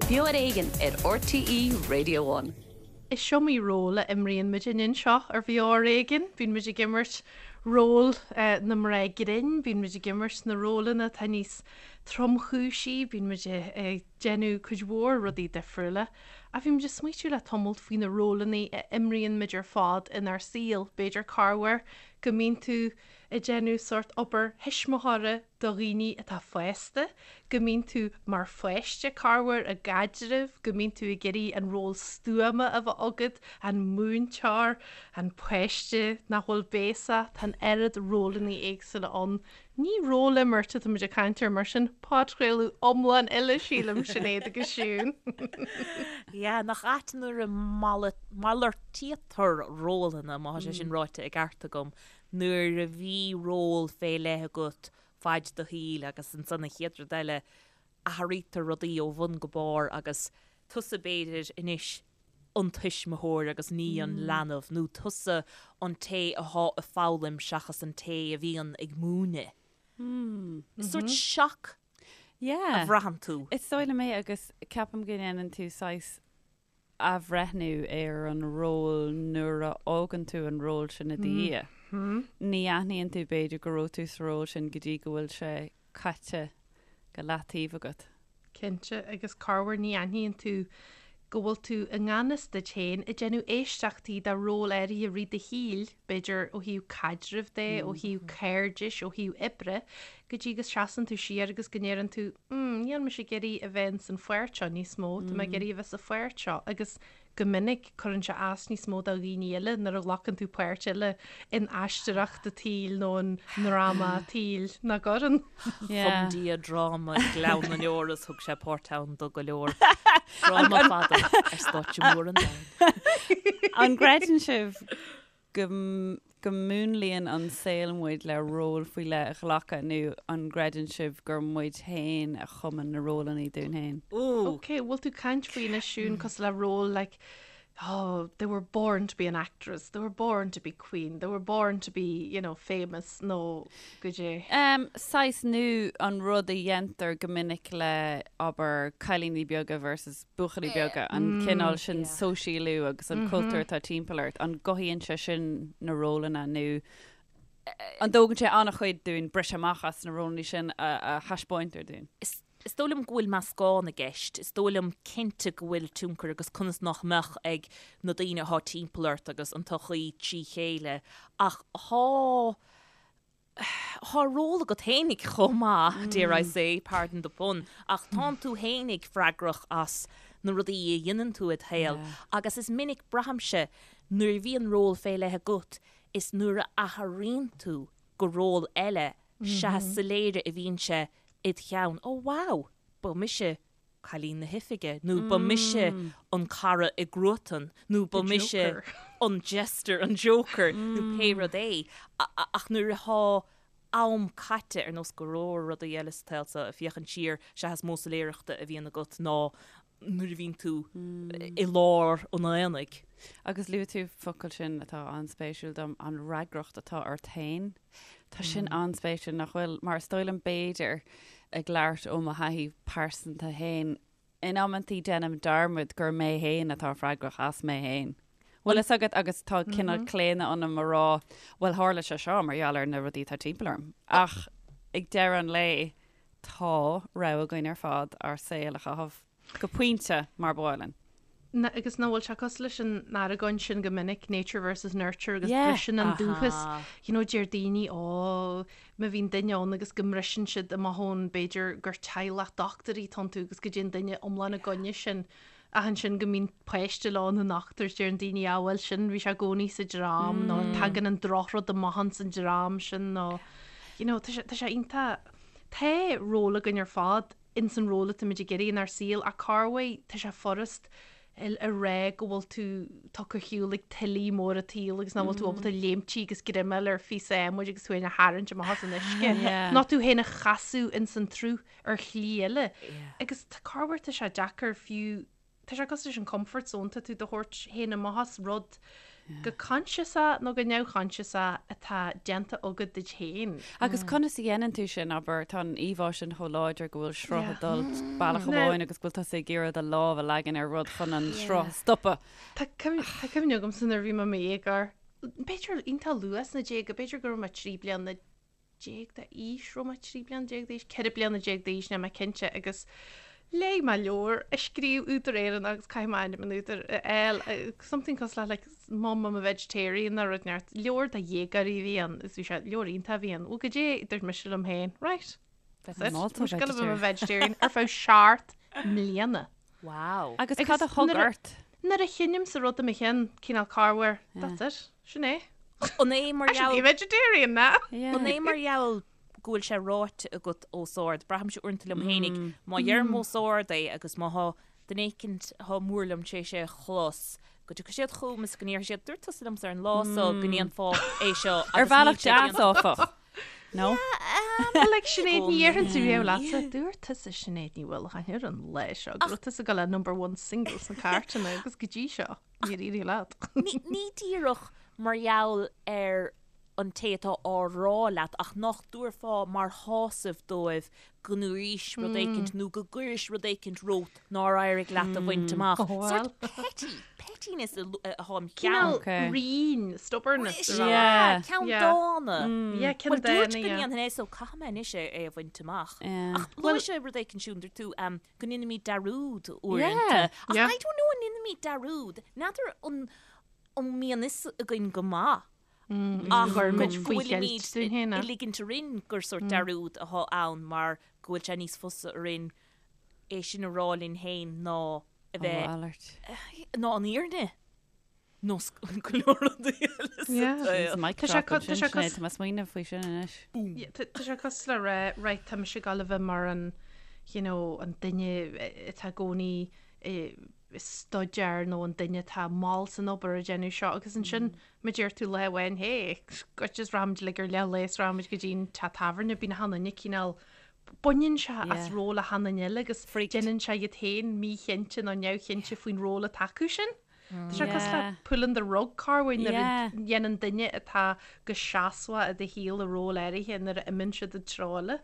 Beo ar Éigean ar RTÉ Radio One. Is iomaí ról a imríonn muidinne anseo ar Bheo ar Éigean. Bíonn muid ag imirt ról na mná grinn, bíonn muid ag imirt na rólanna atá níos tromchúisí, bíonn muid ag déanamh cuid mhór rudaí difriúla. Ach bhí muid ag smaoitiú le tamalt faoi na rólanna a imríonn muid ar fad inár saol. B'fhéidir corruair go mbíonn tú ag déanamh sórt obair thuismitheora do dhaoine atá fásta, go mbíonn tú mar pháiste corruair i gcaidreamh, go mbíonn tú ag iarraidh an ról stuama a bheith agat, an múinteoir, an páiste nach bhfuil béasach, tá an oiread rólanna éagsúla ann. Ní rólimirt atá muid ag caint air mar sin, podchraoladh iomlán eile sílim, Sinéad agus Siún. Yeah, nach ait nuair a malartaítear rólanna, má tá sé sin ráite i gceart agam, nuair a bhí ról fé leith agat faid do shaoil agus ansan an chéad rud eile athraítear rudaí ó bhun go barr agus tusa b'fhéidir anois an tuismitheoir agus ní an leanbh nó tusa an té athá ag foghlaim seachas an té a bhíonn ag múineadh. Is sórt shock a bhraitheann tú. Is dóigh liom é agus ceapaim go ndéanann tú saghas athbhreithniú ar an ról nuair a fhágann tú an ról sin i do dhiaidh. Ní aithníonn tú b'fhéidir go raibh tú sa ról sin go dtí go bhfuil sé caite go leataobh agat. Cinnte, agus corruair ní aithníonn tú go bhfuil tú i ngan fhios duit féin ag déanamh éisteachtaí do ról áirithe i rith do shaoil, b'fhéidir ó thaobh caidrimh de, ó thaobh cairdis, ó thaobh oibre, go dtí go seasann tú siar agus go ndeireann tú, mm, níl mise ag iarraidh a bheith ins an pháirt seo níos mó, tá mé ag iarraidh a bheith sa pháirt seo agus go minic cuireann sé as níos mó do dhaoine eile nuair a ghlacann tú páirt eile in aisteoireacht an tsaoil nó i ndráma an tsaoil nach gcuireann. Chum Dia dráma i nGleann na nDeor is thug sé páirt ann do go leor. Dráma fada ar stáitse mór an domhain. An gcreideann sibh go go múnlaíonn an saol muid le ról faoi leith a ghlacadh nó an gcreideann sibh gur muid féin a chumann na rólanna dúinn féin? Ooh. Ok, bhfuil tú ag caint faoi anois Siún cosúil le ról like oh, they were born to be an actress, they were born to be queen, they were born to be, you know, famous nó goidé. Um, saghas nó an rud a dhéantar go minic le, abair, cailíní beaga versus buachaillí beaga, an cineál sin sóisialú agus an cultúr atá timpeall ort, an gcothaíonn sé sin na rólanna nó an dtógann sé an-chuid dúinn briseadh amach as na rólanna sin a thaispeáintear dúinn? Is dóigh liom go bhfuil meascán i gceist. Is dóigh liom cinnte go bhfuil tionchar agus conas nach mbeadh ag na daoine atá timpeall ort agus an tsochaí trí chéile ach thá Thá ról agat fhéinig chomh maith, dare I say, pardon the pun, ach tánn tú fhéinig freagrach as na rudaí a dheineann tú id shaol agus is minic, braithimse, nuair a bhíonn ról fé leith agat, is nuair a athraíonn tú go ról eile sea is soiléire a bhíonn sé id cheann, oh wow, ba mise cailín na hoifige, nó ba mise an cara i gcruatan, nó ba mise an jester, an joker, nó pé rud é. Ach nuair atá am caite, ar nós go leor rudaí eile sa tsaol seo, ag féachaint siar, sea is mó soiléireachta a bhíonn agat ná nuair a bhíonn tú i lár an aonaigh. Agus luaigh tú focal sin atá an-spéisiúil dom, an fhreagracht atá ort féin. Tá sin an-spéisiúil, nach bhfuil? Mar is dóigh liom b'fhéidir, ag labhairt ó mo thaithí pearsanta féin, in amantaí déanaim dearmad gur mé féin atá freagrach as mé féin. Bhfuil fhios agat agus tá cineál claonadh ionam a rá, bhuel tharla sé seo mar gheall ar na rudaí atá timpeall orm. Ach ag deireadh an lae, tá rogha againn ar fad ár saol a chaitheamh. Go pointe, mar ba mhaith linn. Na, agus nach bhfuil sé cosúil leis an argóint sin go minic, nature versus nurture agus Yeah. briseann an dúchas. You know, deir daoine, ó, má bhíonn duine ann agus go mbriseann siad amach ón, b'fhéidir gur teaghlach dochtúirí atá iontu agus go dtéann duine iomlán i gcoinne sin. Ach ansin go mbíonn páiste leo ina ndochtúir, deireann daoine, ah, bhuel sin, bhí sé i gcónaí sa dream nó tagann an drochrud amach ins an dream sin nó, you know, tá sé, tá sé iontach, tá ról againn ar fad ins an ról atáimid ag iarraidh inár saol ach corruair tá sé furast a rá go bhfuil tú tugtha ar shiúl ag tuillí móra an tsaoil agus nach bhfuil tú ábalta léimtí agus greim a fháil ar phíosa adhmaid agus tú féin a tharraingt amach as an uisce. Nó tú féin a chasadh ins an tsruth ar shlí eile. Agus corruair tá sé deacair fiú, tá sé cosúil leis an comfort zone, tá tú do thabhairt féin amach as rud. go coinsiasach nó go neamhchoinsiasach atá déanta agat duit féin. Agus conas a dhéanann tú sin, abair, tá an íomhá sin chomh láidir go bhfuil sruth ag dul bealach amháin agus go bhfuil tusa ag iarraidh do lámh a leagan ar rud chun an sruth a stopadh. Tá cuimhne agamsa nuair a bhí mé i mo dhéagóir, b'fhéidir iontach luath sna déaga, b'fhéidir go raibh mé 13 bliana d'aois, raibh mé 13 bliana d'aois, 14 bliana d'aois, níl mé cinnte, agus léigh mé leabhar a scríobh údar Éireannach agus caithfidh mé ainm an údair a fháil, something cosúil le like Mum I'm a Vegetarian nó rud inteacht, leabhar do dhéagóirí a bhí ann agus bhí sé, leabhar iontach a bhí ann, bhuel goidé a dúirt mise liom féin, right, that's it, tá mise ag gabháil a bheith i mo vegetarian ar feadh seacht mbliana. Wow. Agus cad a thug ort? Nuair a chinnimse rud i mo cheann, cineál corruair, that's it. Sin é. An é mar I should be gheall vegetarian now. An é mar gheall go bhfuil sé ráite agat os ard? Braithimse uaireanta liom fhéinig, má dheirim os ard é agus má thá duine éicint thá mór liom tar éis é a chlos, go dtiocfaidh siad chugam is go ndéarfaidh siad, dúirt tusa liomsa ar an lá so go ndéanfá é seo Ar agus níl bhealach sé deas, déanta. áfach. No? Well, like Sinéad, ní dhéarfainnse riamh leatsa, dúirt tusa Sinéad Ní Uallacháin ar an lá seo go raibh tusa ag gabháil le number one single sna cairteanna agus go dtí seo. Níor éirigh leat. Ní díreach mar gheall ar an té atá á rá leat ach nach dtabharfá mar shásamh dóibh go ndúraís rud éicint nó go gcuiris rud éicint romhat nár éirigh leat a bhaint amach. Sórt petty, pettiness atá im cheann. Cineál righin, stubbornness. Sea, ceann dána. Yeah, ceann Bhuel, dúirt dána, go yeah. ndéanfainn é so caithfidh mé anois é a bhaint amach. Ach luaigh sé rud éicint Siún, dúirt tú, go ndéanaimid dearúd uaireanta. Ach I don't know an ndéanaimid dearúd. N'fheadar an an mbíonn fhios againn go maith ach go bhfuilimid ag ligint orainn gur sórt dearúd atá ann mar go bhfuil sé níos fusa orainn é sin a rá linn féin ná a bheith ná an fhírinne. Nó go leor rudaí eile sa saol. Mic drop ansin, Sinéad, tá mé ag smaoineamh faoi sin anois. Tá sé cosúil le rá, right, tá mise ag gabháil a bheith mar an, you know, an duine atá i gcónaí ag staidéar nó an duine atá mall san obair ag déanamh seo agus ansin má deir tú lá amháin, hey, goit is rachaimid uilig ar leath lae is rachaimid go dtí an teach tábhairne, bíonn achan duine cineál, baineann sé as ról achan duine eile agus déanann sé iad féin míchinnte nó neamhchinnte faoin ról atá acu sin. Tá sé cosúil le pulling the rug corruair nuair a dhéanann duine atá go seasmhach i do shaol i ról áirithe nuair a imíonn siad i dtreo eile.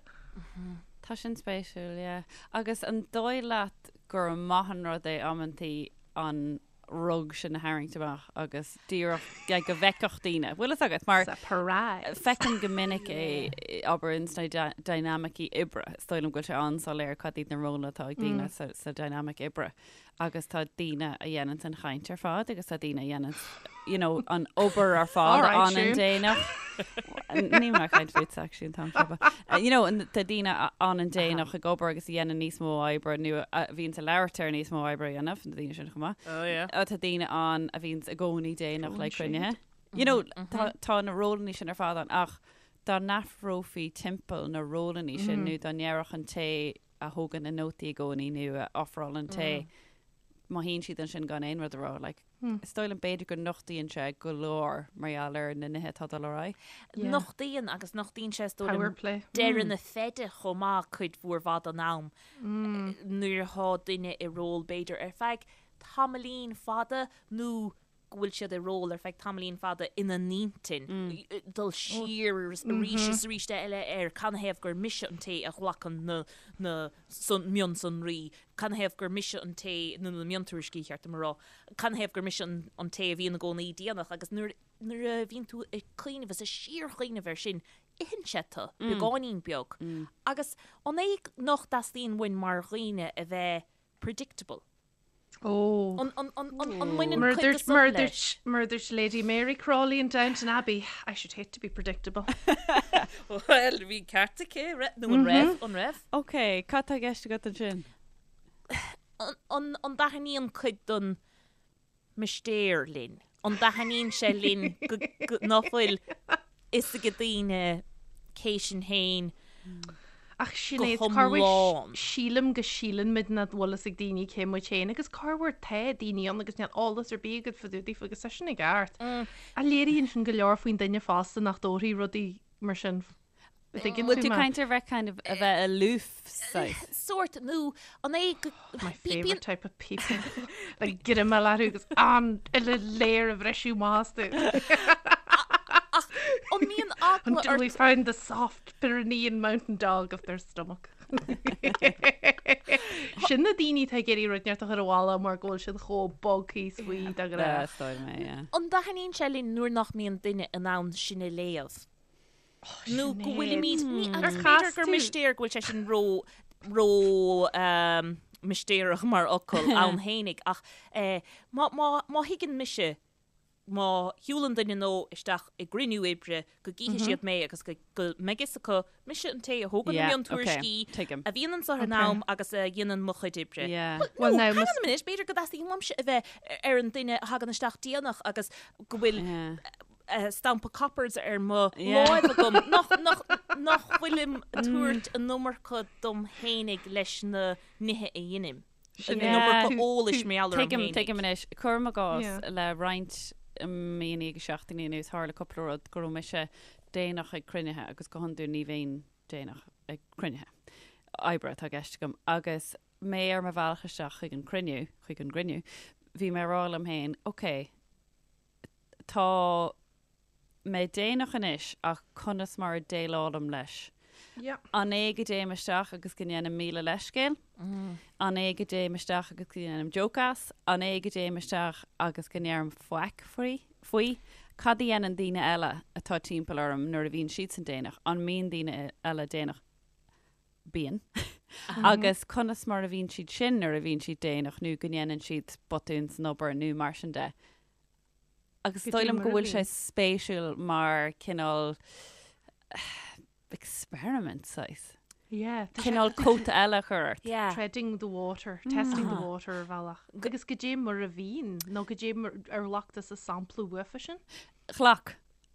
Tá sin spéisiúil, yeah. Agus an dóigh leat gur maith an rud é amantaí an rug sin a tharraingt amach agus díreach like, go bhfeicfeadh daoine. Bhfuil fhios agat mar Surprise! feicim go minic é abair ins na dynamicí oibre. Is dóigh liom go bhfuil sé an-soiléir cad iad na rólanna atá ag daoine sa, sa dynamic oibre. agus tá daoine a dhéananns an chaint ar fad agus tá daoine a dhéananns you know, an obair ar fad All right, an an Siún. déanach. Níl mé ag caint fút actually an t-am seo, but, uh, you know, an- tá daoine a fhanann déanach ag obair agus a dhéanann níos mó oibre nó a bhíonns ag labhairt ar níos mó oibre a dhéanamh, na daoine sin chomh maith. Oh yeah. Uh, Tá daoine ann a bhíonns i gcónaí déanach le Throwing cruinnithe. You know, tá, tá na rólanna sin ar fad ann ach dá n-athrófaí timpeall na rólanna sin nó dá ndéarfadh an té a thógann na nótaí i gcónaí nó a ofrálann tae, má shuíonn siad ansin gan aon rud a rá, like, is dóigh liom b'fhéidir go nochtaíonn sé go leor mar gheall ar na nithe atá ag dul ar aghaidh. Nochtaíonn agus nochtaíonn sé is dóigh Power liom play. deireadh na feide chomh maith cuid mhór mhaith den am nuair atá duine i ról b'fhéidir ar feadh tamaillín fada nó go bhfuil siad i ról ar feadh tamaillín fada ina n-intinn, dul siar arís is arís eile ar canathaobh gur mise an té a ghlacann na na mionsonraí, canathaobh gur mise an té, nó na miontuairiscí, cheart dom a rá, canathaobh gur mise an té a bhíonn i gcónaí déanach agus nuair nuair a bhíonn tú ag cuimhneamh is ag síorchuimhneamh air sin, itheann sé tú, beagáinín beag. Agus an é nach dteastaíonn uainn mar dhaoine a bheith predictable? Ó. An mbaineann cuid de san leis? Mar a dúirt Lady Mary Crawley in Downton Abbey, I should hate to be predictable. Bhuel, bhí ceart aici, nó an raibh? An raibh? Ok, cad tá i gceist agat ansin? An dtaitníonn cuid den mistéir linn? An dtaitníonn sé linn nach bhfuil fhios ag daoine cé sinn féin Ach go Sinéad, corruair hiomlán? sílim go síleann muid nach bhfuil fhios ag daoine cé muid féin agus corruair tá daoine ann agus níl eolas ar bith agat fá dtaobh daofa agus tá sin i gceart. Ach léiríonn sin go leor faoin duine fosta nach dtabharfaí rudaí mar sin. Bhfuil tú caint ar bheith kind of a bheith aloof saghas? Sórt nó an é go My favourite type of people. Le greamáil orthu agus an uile layer a bhriseadh amach astu. Ach an mbíonn eagla Until we find the soft Pyrenean mountain dog of their stomach. Sin na daoine atá ag iarraidh rud inteacht a chur abhaile mar go bhfuil siad chomh bog thíos faoi de ghnáth. An dtaitníonn sé linn nuair nach mbíonn duine in ann sinn a léamh? Nó go bhfuilimid, ní, agus b'fhéidir gur mistéir go bhfuil sé sin ró, ró mistéireach mar fhocal ann fhéinig ach má, má, má thuigeann mise, má shiúlann duine nó isteach i gcruinniú oibre go gcífidh siad mé agus go, go mbeidh fhios acu mise an té a thógann na miontuairiscí, a bhíonn anseo ar an am agus a dhéanann mo chuid oibre. Bhuel, no, hang on a minute, b'fhéidir go dteastaíonn uaimse a bheith ar an duine a thagann isteach déanach agus go bhfuil stampa coppers ar mo láimh agam nach, nach, nach bhfuilim ag tabhairt an iomarca dom fhéinig leis na nithe a dheinim. An iomarca eolais mar gheall orm Tuigim, tuigim anois. Cuirim i gcás le roinnt míonna agus seachtainí anuas tharla cúpla rud go raibh mise déanach ag cruinnithe agus go hiondúil ní bhínn déanach ag cruinnithe. Oibre atá i gceist agam. Agus mé ar mo bhealach isteach chuig an cruinniú, chuig an gcruinniú, bhí mé ag rá liom féin, ok, Tá mé déanach anois ach conas mar a déileálaim leis? An é go dtéim isteach agus go ndéanaim 1000 leithscéal? An é go dtéim isteach agus go ndéanaim joke as? An é go dtéim isteach agus go ndeirim faic faoi? Cad a dhéanann daoine eile atá timpeall orm nuair a bhíonn siadsan déanach? An mbíonn daoine eile déanach? Bíonn. Agus conas mar a bhíonn siad sin nuair a bhíonn siad déanach nó go ndéanann siad botún san obair nó mar sin de? Agus is dóigh liom go bhfuil sé spéisiúil mar cineál experiment saghas. Yeah. Cineál cóta eile a chur ort. Yeah. Treading the water, testing the water ar bhealach. Agus goidé mar a bhíonn, nó goidé mar ar ghlac tusa sampla uafa sin? Ghlac.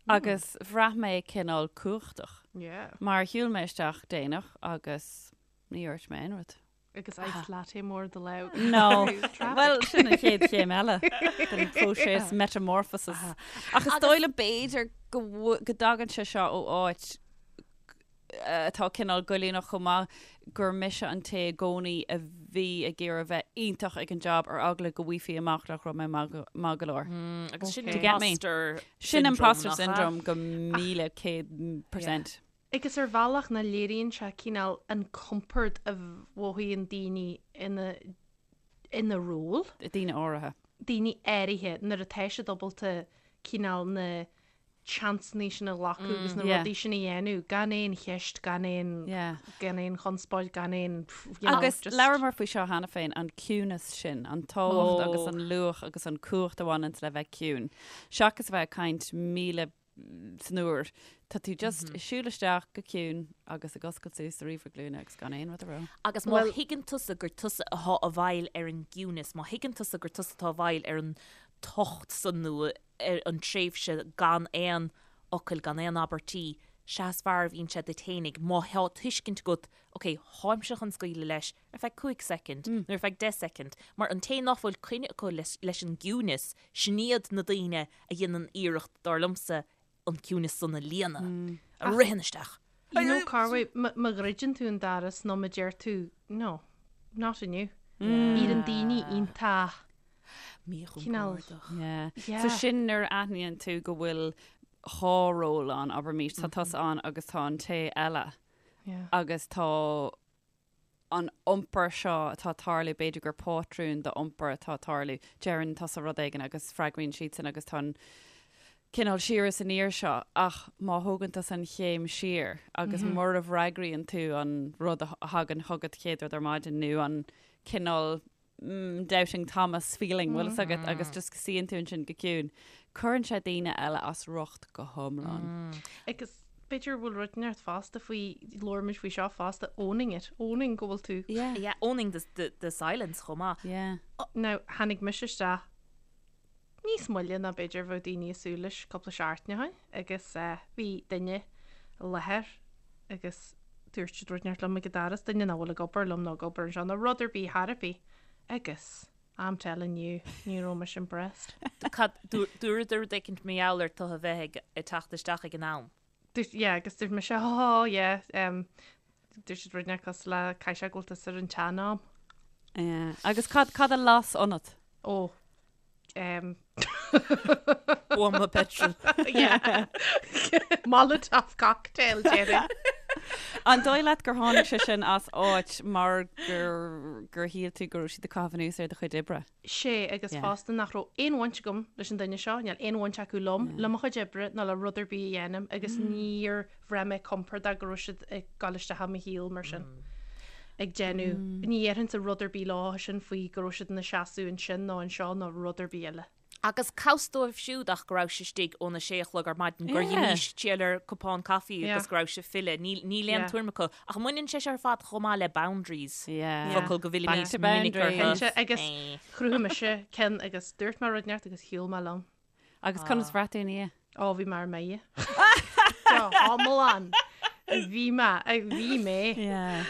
Agus bhraith mé cineál cumhachtach. Yeah. Mar shiúil mé isteach déanach agus ní dhúirt mé aon rud. Agus iced latte mór i do lámh. No. Bhuel, sin an chéad chéim eile den phróiseas metamorphosis. Ach is dóigh liom b'fhéidir go go dtagann sé seo ó áit atá cineál goilliúnach chomh maith, gur mise an té i gcónaí a bhí ag iarraidh bheith iontach ag an job ar eagla go bhfaighfí amach nach raibh mé maith go leor. Agus sin imposter Sin imposter syndrome go 1100%. Agus ar bhealach nach léiríonn sé cineál an compord a mhothaíonn daoine ina ina ról. Daoine áirithe. Daoine áirithe nuair atá siad ábalta cineál na seansanna sin a ghlacadh agus na rudaí sin a dhéanamh gan aon cheist, gan aon gan aon chonspóid, gan aon you know, Agus just. labhramar faoi seo cheana féin, an ciúnas sin, an tábhacht agus an luach agus an cumhacht a bhaineanns le bheith ciúin. Seachas a bheith ag caint 1000 san uair. Tá tú just ag siúl isteach go ciúin agus ag oscailt suas do ríomhaire glúine agus gan aon rud a rá. Agus má thuigeann tusa gur tusa atá i bhfeighil ar an gciúnas, má thuigeann tusa gur tusa atá i bhfeighil ar an tocht san nó ar an tréimhse gan aon fhocal, gan aon abairtí, sea is fearr a bhíonn sé duit fhéinig má thá tuiscint agat, ok, tháimse chun scaoileadh leis ar feadh cúig soicind nó ar feadh deich soicind, mar an té nach bhfuil coinne acu leis an gciúnas, sin iad na daoine a dhéanann iarracht, dar liomsa, an ciúnas san a líonadh, a ritheann isteach. You know, Carway, má dhruideann tú an doras nó má deir tú, no, not inniu. Éiríonn daoine iontach Míchompordach. Yeah. So sin nuair a aithníonn tú go bhfuil dhá ról ann, abraimis, tá tusa ann agus tá an té eile. Agus tá an iompar seo atá ag tarlú, b'fhéidir gur pátrún d'iompar atá ag tarlú, deireann tusa rud éigin agus freagraíonn siadsan agus tá an cineál siar is aniar seo ach má thógann tusa an chéim siar agus mura bhfreagraíonn tú an rud a thagann chugat chéad rud ar maidin nó an cineál doubting Thomas feeling, bhfuil fhios agat, agus just go suíonn tú ansin go ciúin. Cuireann sé daoine eile as riocht go hiomlán. Agus b'fhéidir bhfuil rud inteacht fosta faoi, labhair muid faoi seo fosta, owning it, owning go bhfuil tú. Yeah. Yeah, owning the, the, the silence chomh maith. Yeah. Now, tháinig mise isteach níos moille ná b'fhéidir bheadh daoine ag súil leis cúpla seachtain ó shin agus bhí duine i láthair agus dúirt siad rud inteacht liom ag an doras, duine nach bhfuil ag obair liom nó ag obair anseo nó rud ar bith thar ar bith agus I'm telling you, ní raibh mise impressed. Cad, dúradar rud éicint mar gheall ar tu a bheith ag teacht isteach ag an am? Dúirt, yeah, agus dúirt mise, oh, yeah, um, dúirt siad rud inteacht cosúil le caithfidh sé go bhfuil tusa ar an tsean-am. Yeah. Agus cad, cad a las ionat? Ó, um, Buama petrol. yeah. Molotov cocktail, déarfainn. An dóigh leat gur tháinig sé sin as áit mar gur, gur shíl tú go raibh siad ag caitheamh anuas ar do chuid oibre? Sea, agus fosta nach raibh aon bhaint agam leis an duine seo, níl aon bhaint acu liom, le mo chuid oibre ná le rud ar bith a dhéanaim agus níor bhraith mé compordach go raibh siad ag dul isteach i mo shaol mar sin. Ag déanamh, ní dhéarfainnse rud ar bith leo sin faoi go raibh siad ina seasamh ansin nó anseo nó rud ar bith eile. Agus cá bhfios dóibh siúd ach go raibh sibh istigh óna sé a chlog ar maidin, gur dh'imís triall ar cupán caife agus go raibh sibh ag filleadh. Níl aon tuairim acu. Ach mbaineann sé seo ar fad chomh maith le boundaries, focal go bhfillimid minic orthu. Cinnte, agus chruthaigh mise ceann agus dúirt mé rud inteacht agus shiúil mé liom. Agus conas bhraith tú ina dhiaidh? Ó, bhí mé ar mire. Go hiomlán. Bhí mé, bhí mé.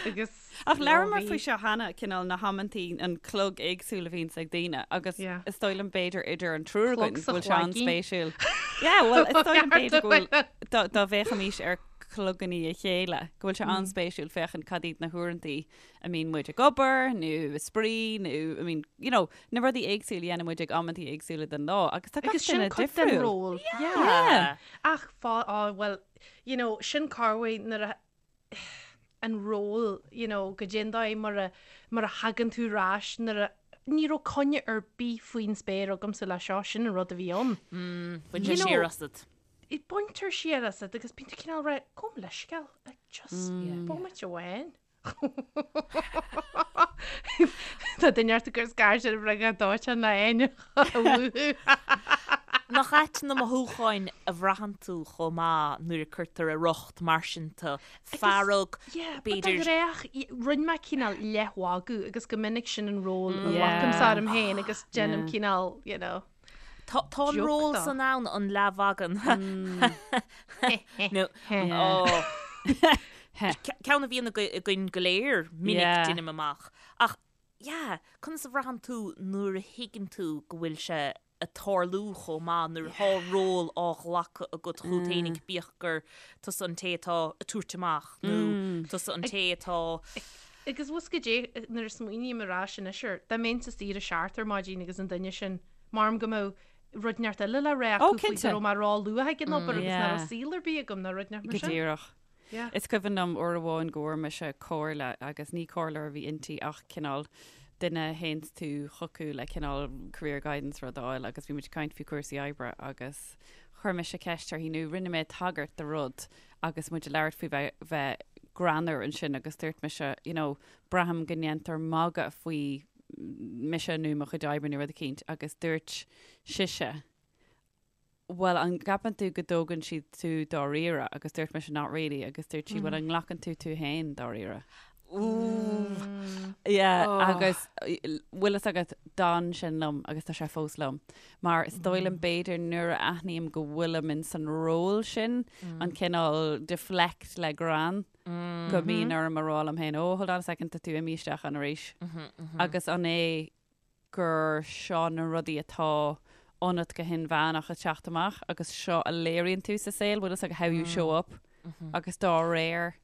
Agus Ach labhramar faoi seo cheana, cineál na hamantaí, an clog éagsúil a bhíonns ag daoine agus is dóigh liom b'fhéidir idir an triúr againn go bhfuil sé an-spéisiúil. Yeah, bhuel, is dóigh liom b'fhéidir go bhfuil, dá bhféachaimis ar chlogannaí a chéile, go bhfuil sé an-spéisiúil féachaint cad iad na huaireantaí a mbíonn muid ag obair nó ag spraoi nó I mean, you know, na rudaí éagsúla a dhéanann muid ag amantaí éagsúla den lá agus tá gach Agus sin duine cuid den difriúil. ról. Yeah. Yeah. Ach fá, á, bhuel, you know, sin corruair nuair a, an ról, you know, goidé an dóigh mar a, mar a thagann tú ar ais nuair a, ní raibh coinne ar bith faoin spéir agamsa le seo, sin an rud a bhí ann. Bhain sé siar asat. Baintear siar asat agus bíonn tú cineál rá, gabh mo leithscéal, like, just bomaite amháin. Tá duine ort ag cur scairt ar an bhriogáid dóiteáin le Áine a mhúchadh. Nach ait na mothúcháin a bhraitheann tú chomh maith nuair a cuirtear i riocht mar sin tú, fearg, b'fhéidir. But rinne mé cineál leathmhagadh agus go minic sin an ról a ghlacaimse orm féin agus déanaim cineál, you know. Tá an ról san ann an leathmhagadh. Nó ceann a bhíonn againn go léir minic deinim amach. Ach yeah, conas a bhraitheann tú nuair a thuigeann tú go bhfuil sé ag tarlú chomh maith, nuair atá ról á ghlacadh agat chugat fhéinig, bíodh gur tusa an té atá ag tabhairt amach nó tusa an té atá. Agus bhfuil a fhios agat goidé nuair a smaoiním ar ais anois air, dá mbeinnse saor a seacht ar maidin agus an duine sin, Maram go mbeadh rud inteacht eile le rá acu faoi go raibh mé ró-luath ag an obair agus nach raibh saol ar bith agam nó rud inteacht mar sin. Go díreach. Is cuimhin liom uair amháin go bhfuair mise comhairle agus ní comhairleoir a bhí inti ach cineál duine a théanns tú chucu le cineál career guidance rud a fháil agus bhí muid ag caint faoi chúrsaí oibre agus chuir mise ceist uirthi nó rinne mé tagairt do rud agus muid ag labhairt faoi bheith bheith greannmhar ansin agus dúirt mise you know braithim go ndéantar magadh faoi mise nó mo chuid oibre nó rud eicínt agus dúirt sise bhuel an gceapann tú go dtógann siad tú dáiríre agus dúirt mise not really agus dúirt sí bhuel an nglacann tú tú féin dáiríre? Yeah agus bhfuil fhios agat d'fhan sin liom agus tá sé fós liom mar is dóigh liom b'fhéidir nuair a aithním go bhfuilim in san ról sin an cineál deflect le greann go mbíonn orm a rá liom féin oh hold on a second tá tú imithe isteach ann arís agus an é gur seo na rudaí atá ionat go hinmheánach ag teacht amach agus seo a léiríonn tú sa saol, bhfuil fhios agat how you show up agus dá réir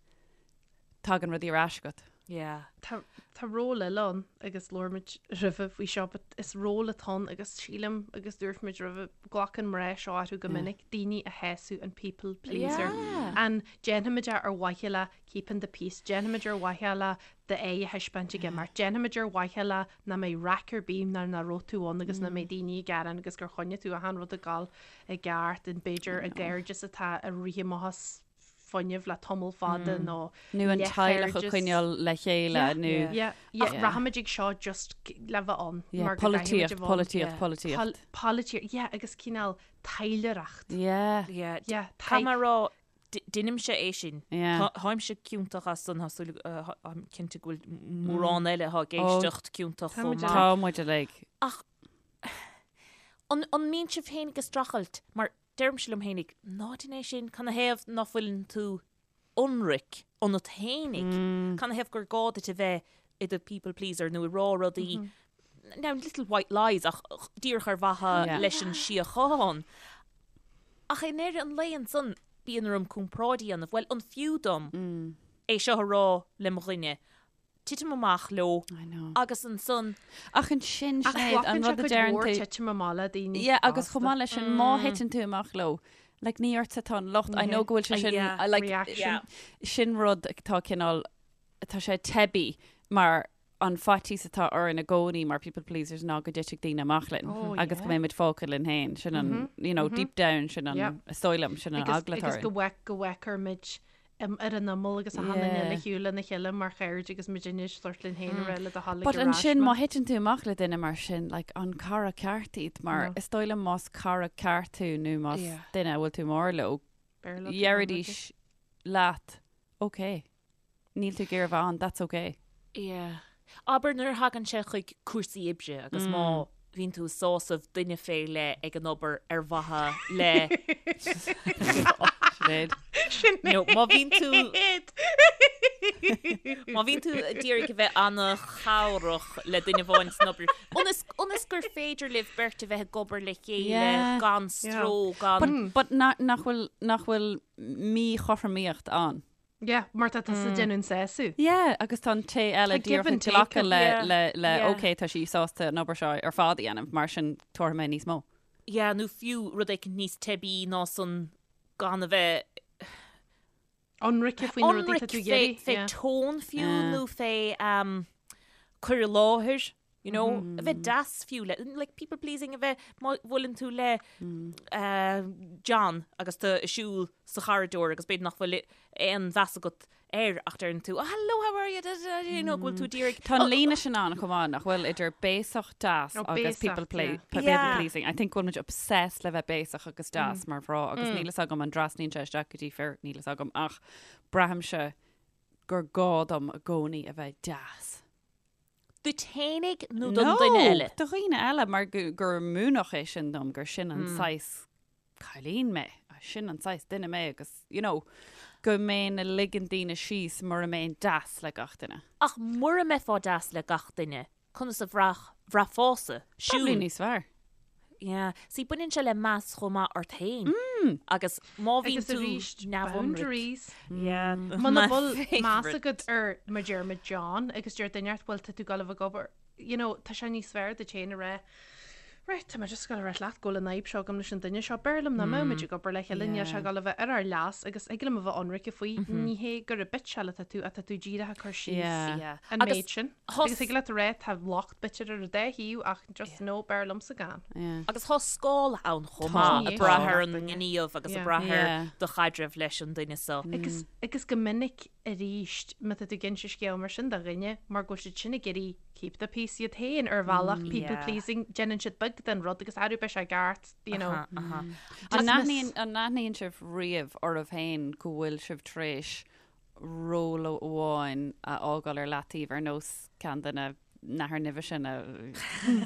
tagann rudaí ar ais agat. Yeah. Tá tá ról eile ann agus labhair muid roimhe faoi seo but is ról atá ann agus sílim agus dúirt muid roimhe glacann mná seo orthu go minic daoine a shásamh an people pleaser. Yeah. An déanfaimid é ar mhaithe le keeping the peace, déanfaimid ar mhaithe le d'aghaidh a thaispeáint ag imeacht, déanfaimid ar mhaithe le nach mbeidh raic ar bith nuair nach raibh tú ann agus nach mbeidh daoine ag gearán agus gur choinnigh tú achan rud ag dul i gceart and b'fhéidir i gcairdeas atá ag rith amach as fuinneamh le tamall fada nó Nó an teaghlach a choinneáil le chéile nó. Yeah, yeah, ach rachaimid ag seo just le bheith ann Yeah, mar go gcaithfimid a polaitíocht, bheith ann. polaitíocht, polaitíocht. Polaitíocht, yeah, agus cineál taidhleoireacht. Yeah. Yeah, Yeah, Caithfidh mé a rá, Deinimse é sin. Táimse ciontach as san, tá súil, táim cinnte go bhfuil mórán eile atá ag éisteacht ciontach chomh maith. Tá muid uilig. Ach an mbíonn sibh féinig ag streachailt, mar deirimse liom féinig, ná déan é sin, canathaobh ná fuileann tú ionraic ionat féinig, canathaobh gur gá duit a bheith i do people pleaser nó ag rá rudaí, now little white lies ach díreach ar mhaithe leis an síocháin. Ach i ndeireadh an lae ansan. bíonn orm comparáid a dhéanamh, bhuel, an fiú dom é seo a rá le mo dhuine? Titim amach leo I know. agus ansan. Ach ansin, Ach Sinéad, an glacann sé rud a cuid deireann mhór tú. titim amach le daoine Yeah, agus chomh fosta. maith leis sin, má thiteann tú amach leo, like, ní ortsa atá an locht. I know go bhfuil sé sin, Yeah. uh, like, Reaction. Yeah. sin rud atá cineál, tá sé teibí mar an faitíos atá orainn i gcónaí mar people pleasers ná go dtitfidh daoine amach linn Oh, agus go yeah. mbeidh muid fágtha linn féin. Sin an, you know, deep down, sin an, Yeah. is dóigh liom, sin an Agus eagla atá agus go orainn. bhfeic go bhfeicfear muid um, ar an imeall agus achan duine Yeah. eile ar shiúl lena chéile mar chairde agus muid anois sórt linn féin a rá le do thoil But ag ar ais ansin mé. má thiteann tú amach le duine mar sin, like, an cara ceart iad mar No. is dóigh liom más cara ceart tú nó más Yeah. duine a bhfuil tú mór leo, B'fhearr leat a bheith deiridís leat, ok, níl tú ag iarraidh a bheith ann, that's ok. Yeah. Abair nuair a thagann sé chuig cúrsaí oibre agus má bhíonn tú ag sásamh duine fé leith ag an obair ar mhaithe le Sinéad. Sinéad. Nó má bhíonn tú má bhíonn tú ag iarraidh a bheith an-chabhrach le duine amháin san obair ionas ionas gur féidir libh beirt a bheith ag obair le chéile Yeah. gan stró gan But, but na, nach bhfuil nach bhfuil míchothromaíocht ann. Yeah, mar tá tusa ag déanamh an sásamh. Yeah, agus tá an té eile Tá give díreach ag and take glacadh le, Yeah, le, le yeah. ok, tá sí sásta an obair seo ar fad a dhéanamh, mar sin tabharfaidh mé níos mó. Yeah, nó fiú rud éicint níos teibí ná san gan a bheith Ionraice faoi na rudaí ionraic tá tú fé, ag iarraidh. fé Yeah. tone fiú Yeah. nó fé um, cur i láthair, you know, a bheith deas fiú le, like people pleasing a bheith má bhuaileann tú le uh, John agus tú ag siúl sa chorridor agus b'fhéidir nach bhfuil aon mheas agat air ach deireann tú, oh, hello, how are you, da, da, da, you know, go bhfuil tú díreach Tá an líne sin ann chomh maith nach bhfuil idir béasach deas Oh, agus béasach, people, play, yeah. people Yeah. pleasing. I think go bhfuil muid obsessed le bheith béasach agus deas mar mhná agus níl fhios agam an dtrasnaíonn sé isteach go dtí fir, níl fhios agam ach braithimse gur gá dom i gcónaí a bheith deas. Duit fhéinig nó don duine eile? Do dhaoine eile mar gur múineadh é sin dom gur sin an saghas cailín mé, sin an saghas duine mé agus, you know, go mbeinn ag ligean daoine síos mura mbeinn deas le gach duine. Ach mura mbeifeá deas le gach duine, conas a bhraithfeása? Probably níos fearr. Yeah. See, baineann sé le meas chomh maith ort féin. Agus má bhíonn Agus tú arís, neamhionraic. boundaries. Yeah. Muna My bhfuil meas favourite. agat ar mar deir muid John agus deir duine ort bhfuil tá tú ag dul a bheith ag obair, you know, tá sé níos fearr duit féin a rá, right, tá mé just ag dul a rá leat go bhfuil an fhadhb seo agam leis an duine seo, b'fhearr liom nach mbeadh muid ag obair le chéile, níl sé ag dul a bheith ar ár leas agus thig liom a bheith ionraice faoi, ní hé gur ag bitseáil atá tú, ach tá tú díreach ag cur síos Yeah. Yeah. an Agus méid sin. thos- Agus thig leat a rá tá locht b'fhéidir ar an dá thaobh ach just no, b'fhearr liomsa gan. Yeah. Agus tá scála ann chomh Tá, maith, ag tá. brath ar an ngníomh agus ag Yeah. brath ar Yeah. do chaidreamh leis an duine seo. Agus, agus go minic arís, má tá tú ag inse scéal mar sin do dhuine, mar go bhfuil siad sin ag iarraidh keep the peace iad féin ar bhealach, people Yeah. pleasing, déanann siad beag den rud agus arú beidh sé ceart, you know. Aha, aha. An Dismiss. n-aithníonn an n-aithníonn sibh riamh oraibh féin go bhfuil sibh tar éis ról amháin a fhágáil ar leataobh ar nós ceann de na nathair nimhe sin a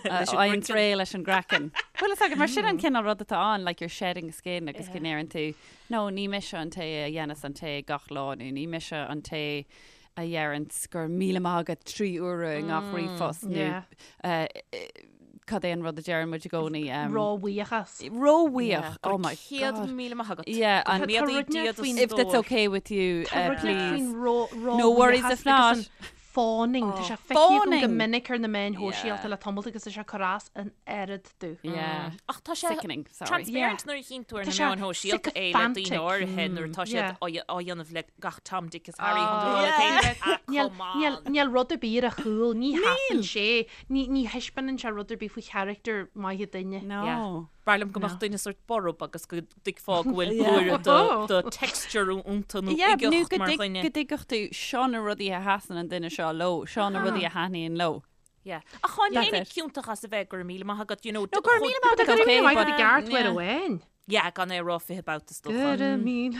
fhaigheann réidh leis an gcraiceann. Bhfuil fhios agat, mar sin an cineál rud atá ann, like you're shedding skin agus go ndeireann tú, no, ní mise an té a dhéanas an tae gach lá nó ní mise an té a dheireanns go raibh míle maith agat 3 uaire i ngach ríomhphost nó cad é an rud a deireann muid i gcónaí? Róbhuíochas. Róbhuíoch, oh my God. 100,000 maith agat. Yeah, and Go mbeadaí Dia do if that's okay with you, Tá rud please. faoin ró No worries if not. Fawning, tá sé feicthe agam go Fawning. minic ar na meáin shóisialta le tamall agus tá sé ag cur as an oiread domh. Yeah. Ach tá sé Sickening, sorry. transparent nuair a chíonn tú ar Tá na sé meáin shóisialta é le daoine sycophantic. áirithe nuair atá siad Yeah. á á dhéanamh le gach Tom, Dick is Harry chun do rá féin. Ah, Níl come on. níl níl rud ar bith ar a chúl, ní sheasann sé, ní ní thaispeánann sé rud ar bith faoi charachtar maith duine. No. Yeah. B'fhearr liom go mbeadh duine sórt borb agus go dtuigfeá go bhfuil blúire Oh. de texture iontu nó Yeah, nó uigeacht go mar dtig- dhuine. go dtuigfeadh tú seo na rudaí a sheasann an duine seo leo, seo na rudaí a thaitníonn leo. Yeah. Ach táim That's féin it. ciontach as a bheith go raibh míle maith agat, you know. No, go raibh míle maith Go agat, raibh okay, míle maith but- agat i gceart uair Yeah. amháin. Yeah, gan é a rá 20 babhta is Go dócha. raibh míle.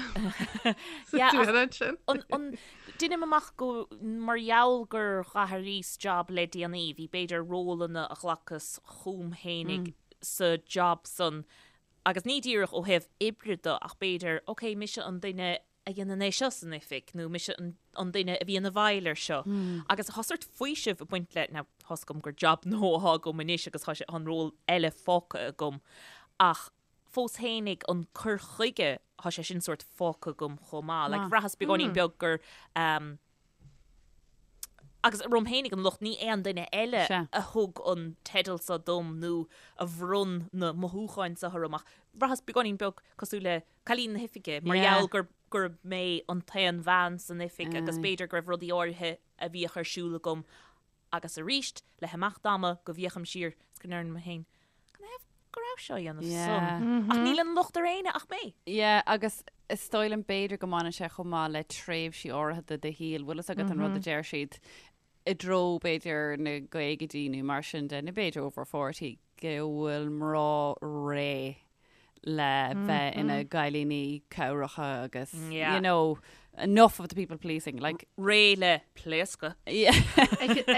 Yeah, Sa ach- dúil ansin. An, an, deinim amach go mar gheall gur dh'athraíos job le déanaí, bhí b'fhéidir rólanna a ghlacas chugam fhéinig sa job san agus ní díreach ó thaobh oibre de ach b'fhéidir, ok, mise an duine a dhéanann é seo san oifig nó mise an, an duine a bhíonn i bhfeighil ar seo. Agus tá sórt faoiseamh ag baint le, now, tá's agam gur job nua atá agam anois agus tá sé an ról eile fágtha agam ach. fós fhéinig an cur chuige, thá sé sin sórt fágtha agam chomh maith. Like, bhraitheas beagáinín beag gur, ehm, agus orm fhéinig an locht, ní aon duine eile a thug an teideal seo dom nó a bhronn na mothúcháin seo orm ach bhraitheas beagáinín beag cosúil le cailín na hoifige mar gheall gur gurb mé an t-aon bhean san oifig agus b'fhéidir go raibh rudaí áirithe a bhíodh ar siúl agam agus arís le himeacht ama go bhféachaim siar is go ndeirim liom féin canathaobh go raibh seo á dhéanamh san ach níl an locht ar éinne ach mé. Yeah agus is dóigh liom b'fhéidir go mbaineann sé chomh maith le tréimhsí áirithe de do shaol, bhfuil fhios agat an rud a deir siad i dtreo b'fhéidir na gcaogaidí nó mar sin de nó b'fhéidir over 40 go bhfuil mná réidh le bheith ina gcailíní cabhracha agus you know enough of the people pleasing like réidh le pléascadh.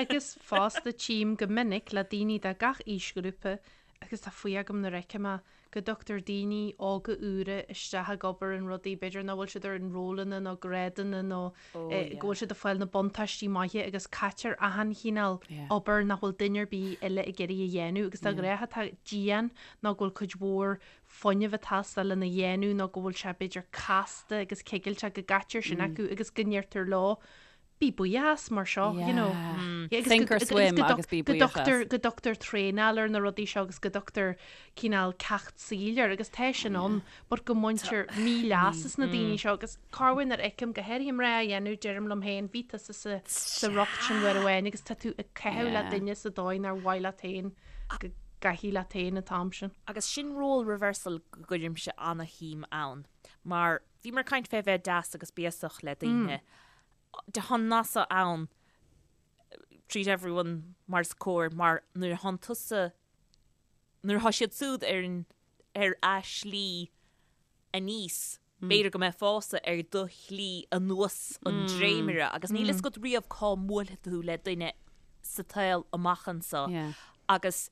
Agus fosta tchím go minic le daoine de gach aoisghrúpa agus tá faoi agam nuair a fheicim é go dtugtar daoine óga úra isteach ag obair in rudaí b'fhéidir nach bhfuil siad ar an rólanna nó grádanna nó go bhfuil siad ag fáil na buntáistí maithe agus caitear achan chineál obair nach bhfuil duine ar bith eile ag iarraidh a dhéanamh agus de ghnáth atá dian nó go bhfuil cuid mhór fuinnimh ag teastáil lena dhéanamh nó go bhfuil sé b'fhéidir casta agus cigilteach go gcaitear sin acu agus go ndeirtear leo bí buíoch as mar seo, you know. Yeah. Sink or swim agus bí buíoch as. Go dtugtar traenáil ar na rudaí seo agus go dtugtar cineál ceacht saoil air agus tá sin ann but go mbaintear míleas as na daoine seo agus corruair nuair a fheicim go háirithe mná á dhéanamh deirim liom féin bhí tusa sa sa riocht sin uair amháin agus tá tú ag caitheamh le duine sa dóigh nár mhaith leat féin go gcaithfí leat féin an t-am sin. Agus sin role reversal go gcuirimse ana-shuim ann mar bhíomar ag caint fé bheith deas agus béasach le daoine. Tá an nath so ann treat everyone mar is cóir mar nuair a thánn tusa nuair atá siad súd ar an ar a slí aníos b'fhéidir go mbeifeása ar do shlí anuas an dréimire agus níl fhios agat riamh cá mbuailfidh tú le duine sa tsaol amach anso agus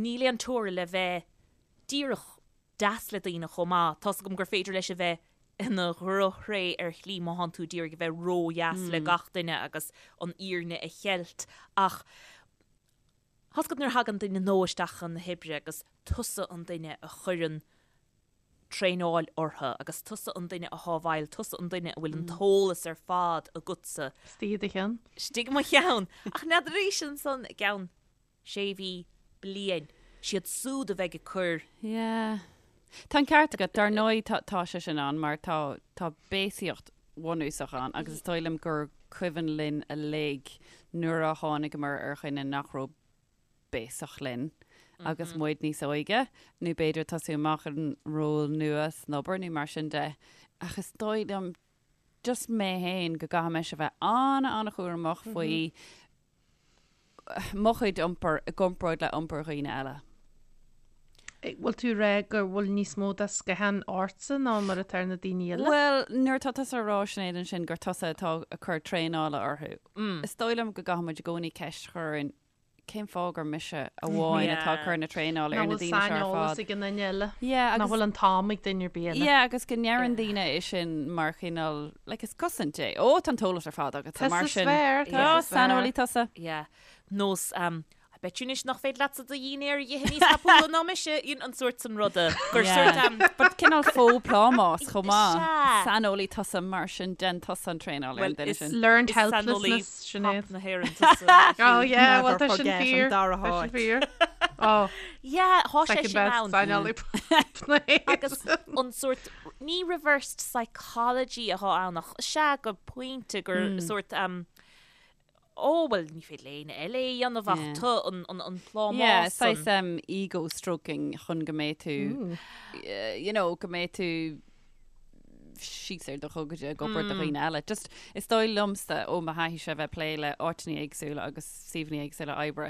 níl aon teora le bheith díreach deas le daoine chomh maith. Tá's agam gur féidir leis a bheith ina dhrochthréith ar shlí má thánn tú d'iarraidh a bheith ródheas le gach duine agus an fhírinne a cheilt ach tá's agat nuair a thagann duine nua isteach chun na hoibre agus tusa an duine a chuireann traenáil orthu agus tusa an duine athá i bhfeighil, tusa an duine a bhfuil an t-eolas ar fad agatsa. Istigh i do cheann. Istigh i mo cheann. Ach n'fheadar arís ansan i gceann sé mhí, bliain, siad súd a bheidh ag cur. Yeah. Tá an ceart agat, dar ndóigh tá, tá sé sin ann mar tá, tá béasaíocht bhunúsach ann agus is dóigh liom gur cuimhin linn uilig nuair a tháinigeamar ar dhuine nach raibh béasach linn agus muid níos óige nó b'fhéidir tosú amach in ról nua san obair nó mar sin de ach is dóigh liom just mé féin go gcaithfidh mise a bheith an-an-chúramach faoi mo chuid iompair i gcomparáid le iompar dhaoine eile. Bhfuil tú ag rá go bhfuil níos mó de sciathán ortsa ná mar atá ar na daoine eile? Bhuel, nuair atá tusa ag rá, Sinéad, ansin gur tusa atá ag cur traenála orthu, is dóigh liom go gcaithfidh muid i gcónaí ceist a chur orainn, cén fáth gur mise amháin atá ag cur na traenála ar na daoine seo ar fad? Nach bhfuil saineolas ag an duine eile. Yeah, agus. Nach bhfuil an t-am ag duine ar bith eile. Yeah, agus go ndeireann daoine é sin mar chineál, like, is cosaint é. Ó, tá an t-eolas ar fad agatsa, mar sin. Tusa is fearr, tusa is fearr. Saineolaí tusa. Yeah. Nós, um, I bet you anois nach féidir leatsa do dhinnéar a dh'ithe níos tapúla ná mise, you know, an sórt san ruda. Gur sórt, um, But cineál faux plámás chomh maith. Sea. Saineolaí tusa, mar sin, déan tusa an traenáil ar an duine sin. Learned Is saineolaí helplessness, Sinéad. pop na hÉireann tusa. Oh yeah, well Never tá sin forget an fíor. dara Tá sin háit. fíor. Oh, Yeah, thá sé second sin best ann. saineolaí pop na hÉireann. Agus an sórt, ní reversed psychology athá ann ach sea go pointe gur sórt, um, ó bhuel ní féidir le éinne eile é a dhéanamh ach Yeah. tu an, an, an plámás Yeah, san. saghas um, ego stroking chun go mbeidh tú, eh, you know, go mbeidh tú síos ar do ghogaide ag obair do dhaoine eile. Just, is dóigh liomsa ó mo thaithíse bheith ag plé le áiteanna éagsúla agus suíomhanna éagsúla oibre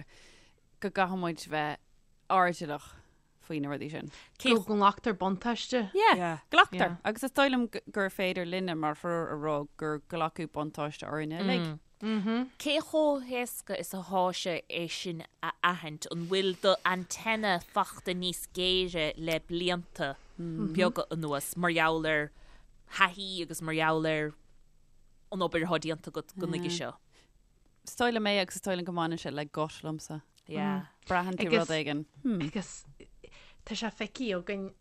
go gcaithfidh muid bheith airdeallach faoi na rudaí sin. Cé go nglactar buntáiste. Yeah, Yeah. glactar. Yeah. Agus is dóigh liom gur féidir linne mar thriúr a rá gur glacadh buntáiste orainne uilig. Cé chomh héasca is athá sé é sin a aithint? An bhfuil do antenna fachta níos géire le blianta beaga anuas mar gheall ar thaithí agus mar gheall ar an obair athá déanta agat go nuige seo? Is dóigh liom é agus is dóigh liom go mbaineann sé le gut liomsa. Yeah. Braitheann tú rud éigin. Agus tá sé feicthe againn.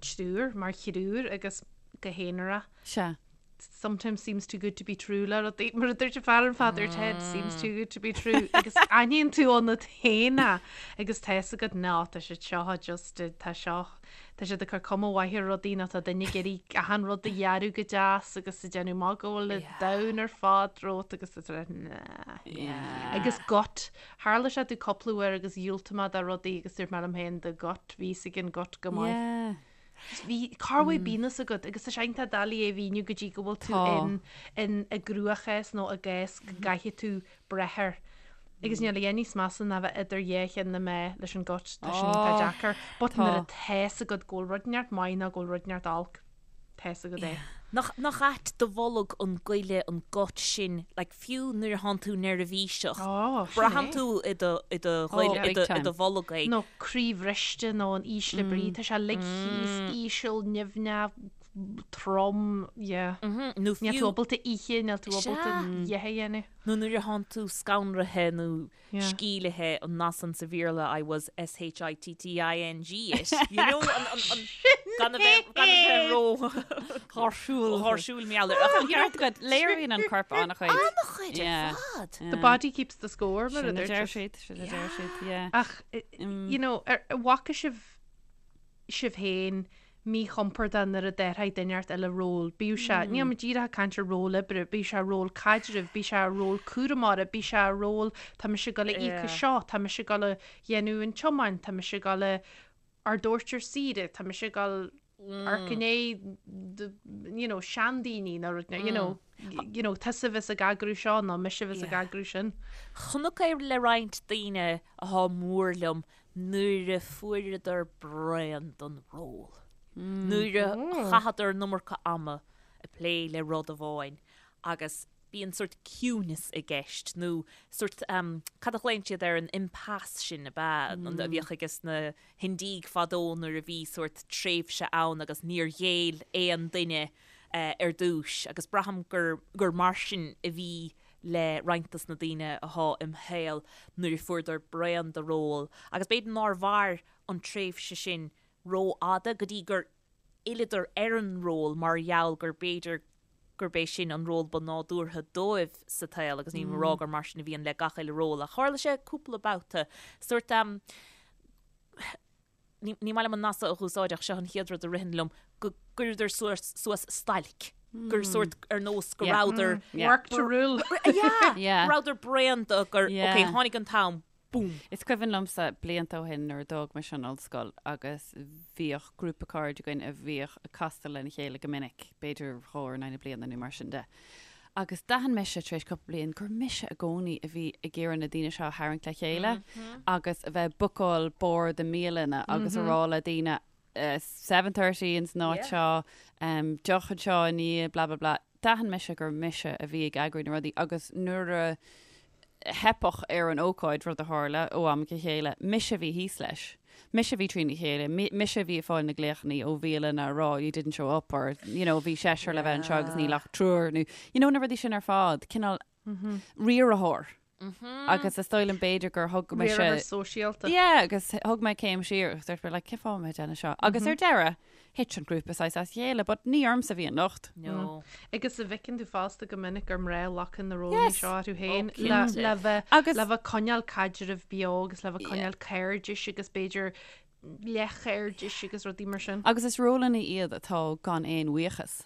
triúr, mar thriúr agus go haonarach. Sea. Sometimes seems too good to be true le rudaí, mar a dúirt an fear an fad ar Ted, seems too good to be true agus aithníonn tú ionat féin é agus tá fhios agat ná tá siad seo just tá seo tá siad ag cur cuma mhaith ar rudaí nó tá duine ag iarraidh achan rud a dhearadh go deas agus ag déanamh amach go bhfuil an domhan ar fad romhat agus tá tú like nah. Agus gut, tharla sé domh cúpla uair agus dhiúltaigh mé do rudaí agus dúirt mé liom féin the gut, bhí fhios ag an gut go maith. Yeah. Bhí, cá bhfuil bíonn fhios agat agus tá sé iontach doiligh é a mhíniú go dtí go bhfuil tú in, in i gcruachás nó i gcás go gcaithfidh tú breith air. Agus níl a dhath níos measa ná bheith idir dhá cheann na meá leis an gut, tá sin iontach deacair. But nuair atá fhios agat go bhfuil rud inteacht maith nó go bhfuil rud inteacht olc, tá fhios agat é. Nach, nach ait do bholg an goile, an gut sin, like fiú nuair atánn tú neirbhíseach, Ó, sin braitheann é. tú i do, i do ghoile, Oh, i do, big i do time. bholg é. Nó croí bhriste nó in ísle brí, tá sé uilig thíos, íseal, nimhneach, trom, yeah. Nó Níl tú fiú, ábalta ithe, níl tú ábalta Sea. a dhath a dhéanamh. nó nuair atánn tú scanraithe nó Yeah. scealltaithe, an nath san sa Bhéarla I was S-H-I-T-T-I-N-G it. You know, an, an, an, gan a bheith, gan a bheith ró Gáirsiúil. gháirsiúil mar gheall air. Ach, you know, Ceart agat, léiríonn an corp an-chuid. an-chuid ar Yeah. fad. The body keeps the score, mar a Sin a dúirt deir siad. siad, sin a deir siad, yeah. Ach, you know, ar, bhfaca sibh sibh féin míchompordach nuair a d'athraigh duine inteacht eile ról, bíodh sé, níl mé díreach ag caint ar ról oibre, bíodh sé ról caidrimh, bíodh sé ról cúramóra, bíodh sé ról tá mise ag dul a íoc as seo, tá mise ag dul a dhéanamh an tiomáint, tá mise ag dul a ardóirt ar saoire, tá mise ag dul amharc i ndiaidh you know, seandaoine nó rud, you know, you know, tusa a bheas ag eagrú seo nó mise a bheas ag eagrú sin. Chonac é le roinnt daoine athá mór liom nuair a fuaireadar braon den ról. Nuair a chaitheadar an iomarca ama ag plé le rud amháin agus bíonn sórt ciúineas i gceist nó sórt, cad a ghlaonn siad air, an impasse sin ab ea, a bhíodh ages na hIndiaigh fadó nuair a bhí sórt tréimhse ann agus níor ghéill aon duine ar dtúis agus braithim gur gur mar sin a bhí le roinnt dos na daoine athá im shaol nuair a fuaireadar braon de ról agus b'fhéidir nár mhair an tréimhse sin rófhada go dtí gur fhilleadar ar an ról mar gheall gur b'fhéidir gurb é sin an ról ba nádúrtha dóibh sa tsaol agus nílim ag rá gur mar sin a bhíonn le gach uile ról ach tharla sé cúpla babhta sórt ní maith liom an nath seo a dh'úsáid ach seo an chéad rud a ritheann liom, go gcuireadar suas stailc, gur sórt ar nós go rabhadar Work to rule. Yeah, go rabhadar bréan de gur, ok, tháinig an t-am, boom. Is cuimhin liomsa blianta ó shin nuair a d'fhág mise an ollscoil agus bhíodh grúpa cairde againn a bhíodh ag castáil lena chéile go minic, b'fhéidir dhá uair in aghaidh na bliana nó mar sin de. Agus d'aithin mise tar éis cúpla bliain gur mise i gcónaí a bhí ag iarraidh na daoine seo a tharraingt le chéile agus a bheith ag bookáil bord i mbialanna agus a rá le daoine 7:30 ins an áit seo, deoch anseo i ndiaidh blah blah blah. D'aithin mise gur mise a bhí ag eagrú na rudaí agus nuair a theipeadh ar an ócáid, rud a tharla ó am go chéile, mise a bhí thíos leis. Mise a bhí trína chéile, mise a bhí ag fáil na glaochanna ó bhialanna a rá you didn't show up or you know bhí seisear le bheith anseo agus níl ach triúr nó you know na rudaí sin ar fad, cineál riarthóir. Agus is dóigh liom b'fhéidir gur thug mise... Riarthóir sóisialta. Yeah, agus thug mé céim siar agus dúirt mé like cén fáth a bhfuil mé ag déanamh seo? Agus ar deireadh, Thit an grúpa saghas as a chéile, but ní ormsa a bhí an locht. No. Agus an bhfeiceann tú fosta go minic gur mná a ghlacann na rólanna Yes. seo orthu féin Oh, le cinnte. le bheith Agus- le bheith coinneáil caidreamh beo agus le bheith coinneáil cairdis agus b'fhéidir leathchairdis agus rudaí mar sin. Agus is rólanna iad atá gan aon bhuíochas.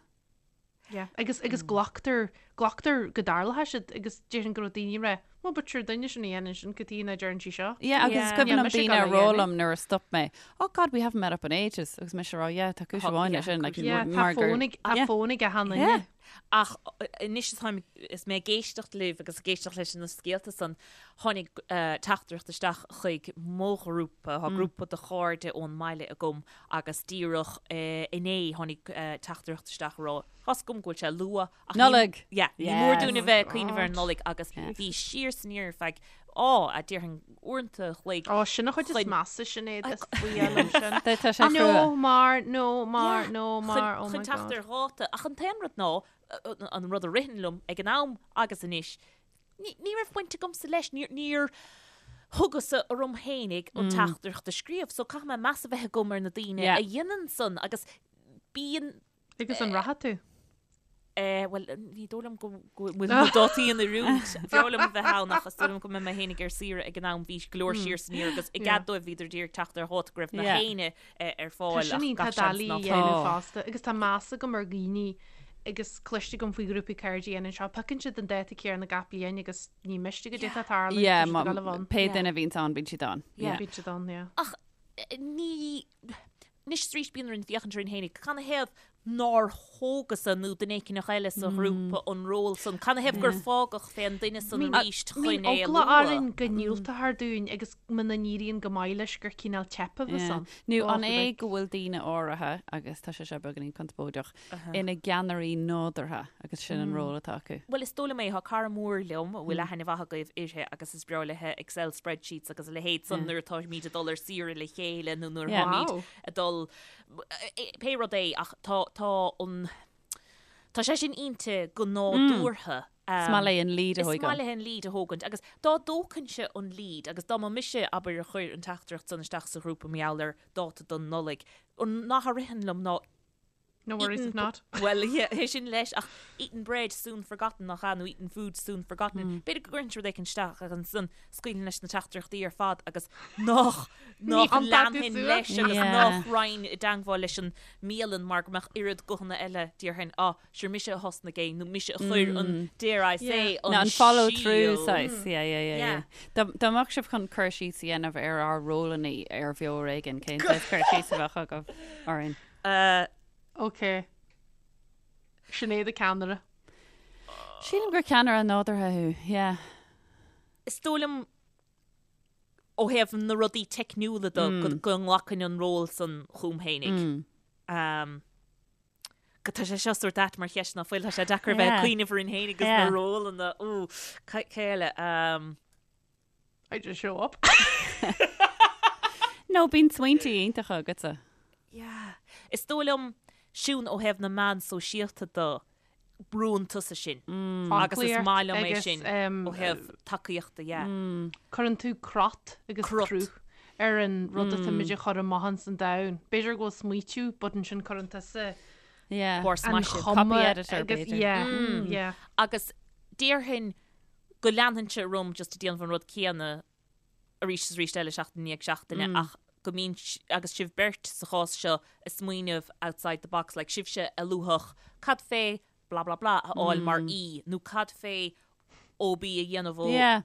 Yeah. Agus agus glactar glactar go dtarlóidh siad agus déarfainn go raibh daoine ag rá, well but sure duine sin a dhéanann sin cad chuige nach deireann sí seo. Yeah, agus is Yeah. cuimhin Níl liom mise ag daoine a dul a rá dhéanamh. liom nuair a stop mé, oh God, we haven't met up in ages, agus mise a rá, yeah, tá cúis Tá- amháin yeah, leis sin, like, cúis Yeah, tá mar gur- fón ag tá Yeah. fón ag achan duine. Yeah. Ach anois atáim is mé ag éisteacht libh agus ag éisteacht leis na scéalta san, tháinig teachtaireacht isteach chuig mo ghrúpa, tá grúpa de chairde ón mbaile agam agus díreach inné tháinig teachtaireacht isteach a rá, Tá's agam go bhfuil sé luath ach ní- Nollaig! Yeah, ní mór Yes. dúinn a bheith ag cuimhneamh ar an Nollaig agus bhí siar 's aniar ar feadh, á, a déarfainn uaireanta a chloig. Ó, sin an chuid is Chun- measa Sinéad, is fuath liom sin. Tá tá sé No crua. mar, no mar, Yeah. no Chun mar, oh my chun teacht God. ar dháta. Ach an t-aon rud ná, an rud a ritheann liom ag an am agus anois, ní ní raibh baint agamsa leis, níor níor. Thógas-sa orm fhéinig an teachtaireacht a scríobh, so caithfidh mé meas a bheith agam ar na daoine a dhéanann san agus bíonn. Agus an rachaidh tú? Eh, bhuel, ní dóigh liom go bhfuil na dátaí in oiriúint. B'fhearr liom a bheith ann ach is dóigh liom go mbeidh mé fhéinig ar saoire ag an am. Bhí go leor siar san iar agus i gcead dóibh bhíodar d'iarraidh teacht ar dháta go raibh nach éinne ar fáil ach gach seans ná tá. fosta agus tá meas agam ar dhaoine agus cloiste agam faoi ghrúpaí cairde a dhéanann seo. Piocann siad an dáta céanna gach bliain agus ní miste goidé atá ag tarlú, tá siad ag dul a bhun. Pé duine a bhíonns ann, bíonn siad ann. Bíonn siad ann, yeah. Ach ní. Anois is arís bíonn orainn féachaint orainn fhéinig, canathaobh nár thógas-sa nó duine éigineach eile sa ghrúpa an ról san? Canathaobh gur fágadh fén duine san arís chun é a lua? Bíonn eagla orainn go ndiúltófar dúinn agus muna n-éiríonn go maith leis gur cineál teip a bheas ann. Nó an é go bhfuil daoine áirithe, agus tá sé seo beagáinín conspóideach, ina gceannairí nádúrtha agus sin an ról atá acu. Bhuel, is dóigh liom é. Tá cara mór liom a bhfuil aithne mhaith agaibh uirthi agus is breá léithe Excel spreadsheets agus a leithéid san nuair atáimid ag dul ar saoire le chéile nó nuair atáimid ag dul, pé rud é ach tá, tá an, tá sé sin inti go nádúrtha. Is maith léi an lead a thógáil. Is maith léi an lead a thógaint agus dá dtógfainnse an lead agus dá mba mise, abair, a chuir an teachtaireacht san isteach sa ghrúpa mar gheall ar dáta don Nollaig, an nath a ritheann liom ná No worries if not. Bhuel, yeah, é sin leis, ach eaten bread soon forgotten nach ea, nó eaten food soon forgotten. Mm. B'fhéidir go gcuirfinn rud éicint isteach agus ansan scaoilfinn leis na teachtaireachtaí ar fad agus nach nach leanfainn leis agus nach raghainn i dteangmháil leis an mbialann mar go mbeadh oiread guthanna eile déarfainn, ah, sure mise a thosnaigh é nó mise a chuir an mm. dare I say an an follow through saghas. Yeah, yeah, yeah, yeah. Dá dá mbeadh sibh chun cur síos a dhéanamh ar ár rólanna ar Bheo Ar Éigean, cén saghas cur síos a bheadh agaibh orainn? Uh, ok. Sinéad an ceannaire. Sílim gur ceannaire nádúrtha thú, yeah. Is dóigh liom ó thaobh na rudaí teicniúla de mm. go, go nglacfainn an ról san chugam fhéinig. Mm. Um, go tá sé seo sórt ait mar cheist ná fuil tá sé deacair bheith ag cuimhneamh orainn fhéinig agus na rólanna ú cé eile um, I just show up. No, bíonn smaointe iontacha agatsa. Yeah. Is dóigh liom, Siún, ó thaobh na meán sóisialta de, brúann tusa sin. Agus is maith liom é sin ó thaobh tacaíochta, yeah. Cuireann tú crot agus cruth ar an rud atáimid a chur amach ins an domhan. B'fhéidir go bhfuil smaoitiú, but ansin cuireann tusa an chuma agus, yeah, yeah. Agus déarfainn go leanfainnse orm just ag déanamh an rud céanna arís is arís eile seachtain i ndiaidh seachtaine ach go mbíonn, agus sibh beirt sa chás seo ag smaoineamh outside the box, like sibhse a luafadh cad fé blah blah blah a fháil mar aoi nó cad fé OB a dhéanamh ó Yeah.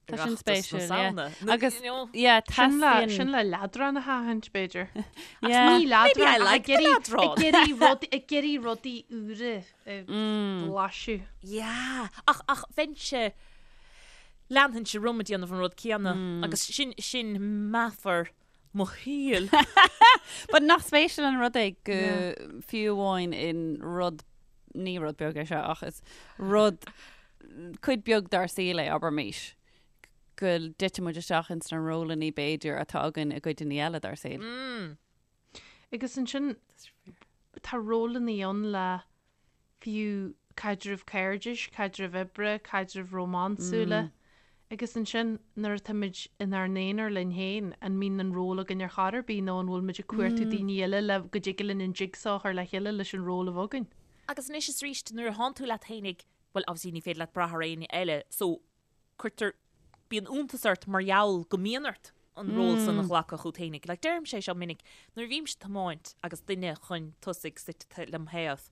Tá sin Oireachtas na spéisiúil, yeah. Samhna. Nó, Agus, you know, yeah, Sin le, teastaíonn... sin le leadrán a sheachaint, b'fhéidir. Ach Yeah. ní leadrán, Maybe I ach like ag the iarraidh, leadrán. ag iarraidh rudaí, ag iarraidh rudaí úra a bhlaiseadh. Yeah. Ach, ach bheinnse, leanfainnse orm ag déanamh an rud céanna agus sin, sin meafar mo shaoil. But nach spéisiúil an rud é go fiú amháin in rud, ní rud beag é seo ach is rud cuid beag dár saol é, abraimis, go dtiteann muid isteach ins na rólanna b'fhéidir atá againn i gcuideanna eile dár saol. Agus ansin tá rólanna ann le fiú caidrimh cairdis, caidrimh oibre, caidrimh rómánsúla. Agus ansin nuair atáimid inár n-aonar linn féin, an mbíonn an ról againn ar chor ar bith nó an bhfuil muid ag cuartú daoine eile le go dtig linn an jigsaw a chur le chéile leis an ról a bheith againn? Agus anois is arís nuair a thánn tú leat fhéinig, bhuel obviously ní féidir leat brath ar éinne eile so cuirtear, bíonn iontas ort mar gheall go mbíonn ort an ról san a ghlacadh chút fhéinig. Like deirimse é seo minic, nuair a bhímse ag tiomáint agus duine chun tosaigh suite lem thaobh,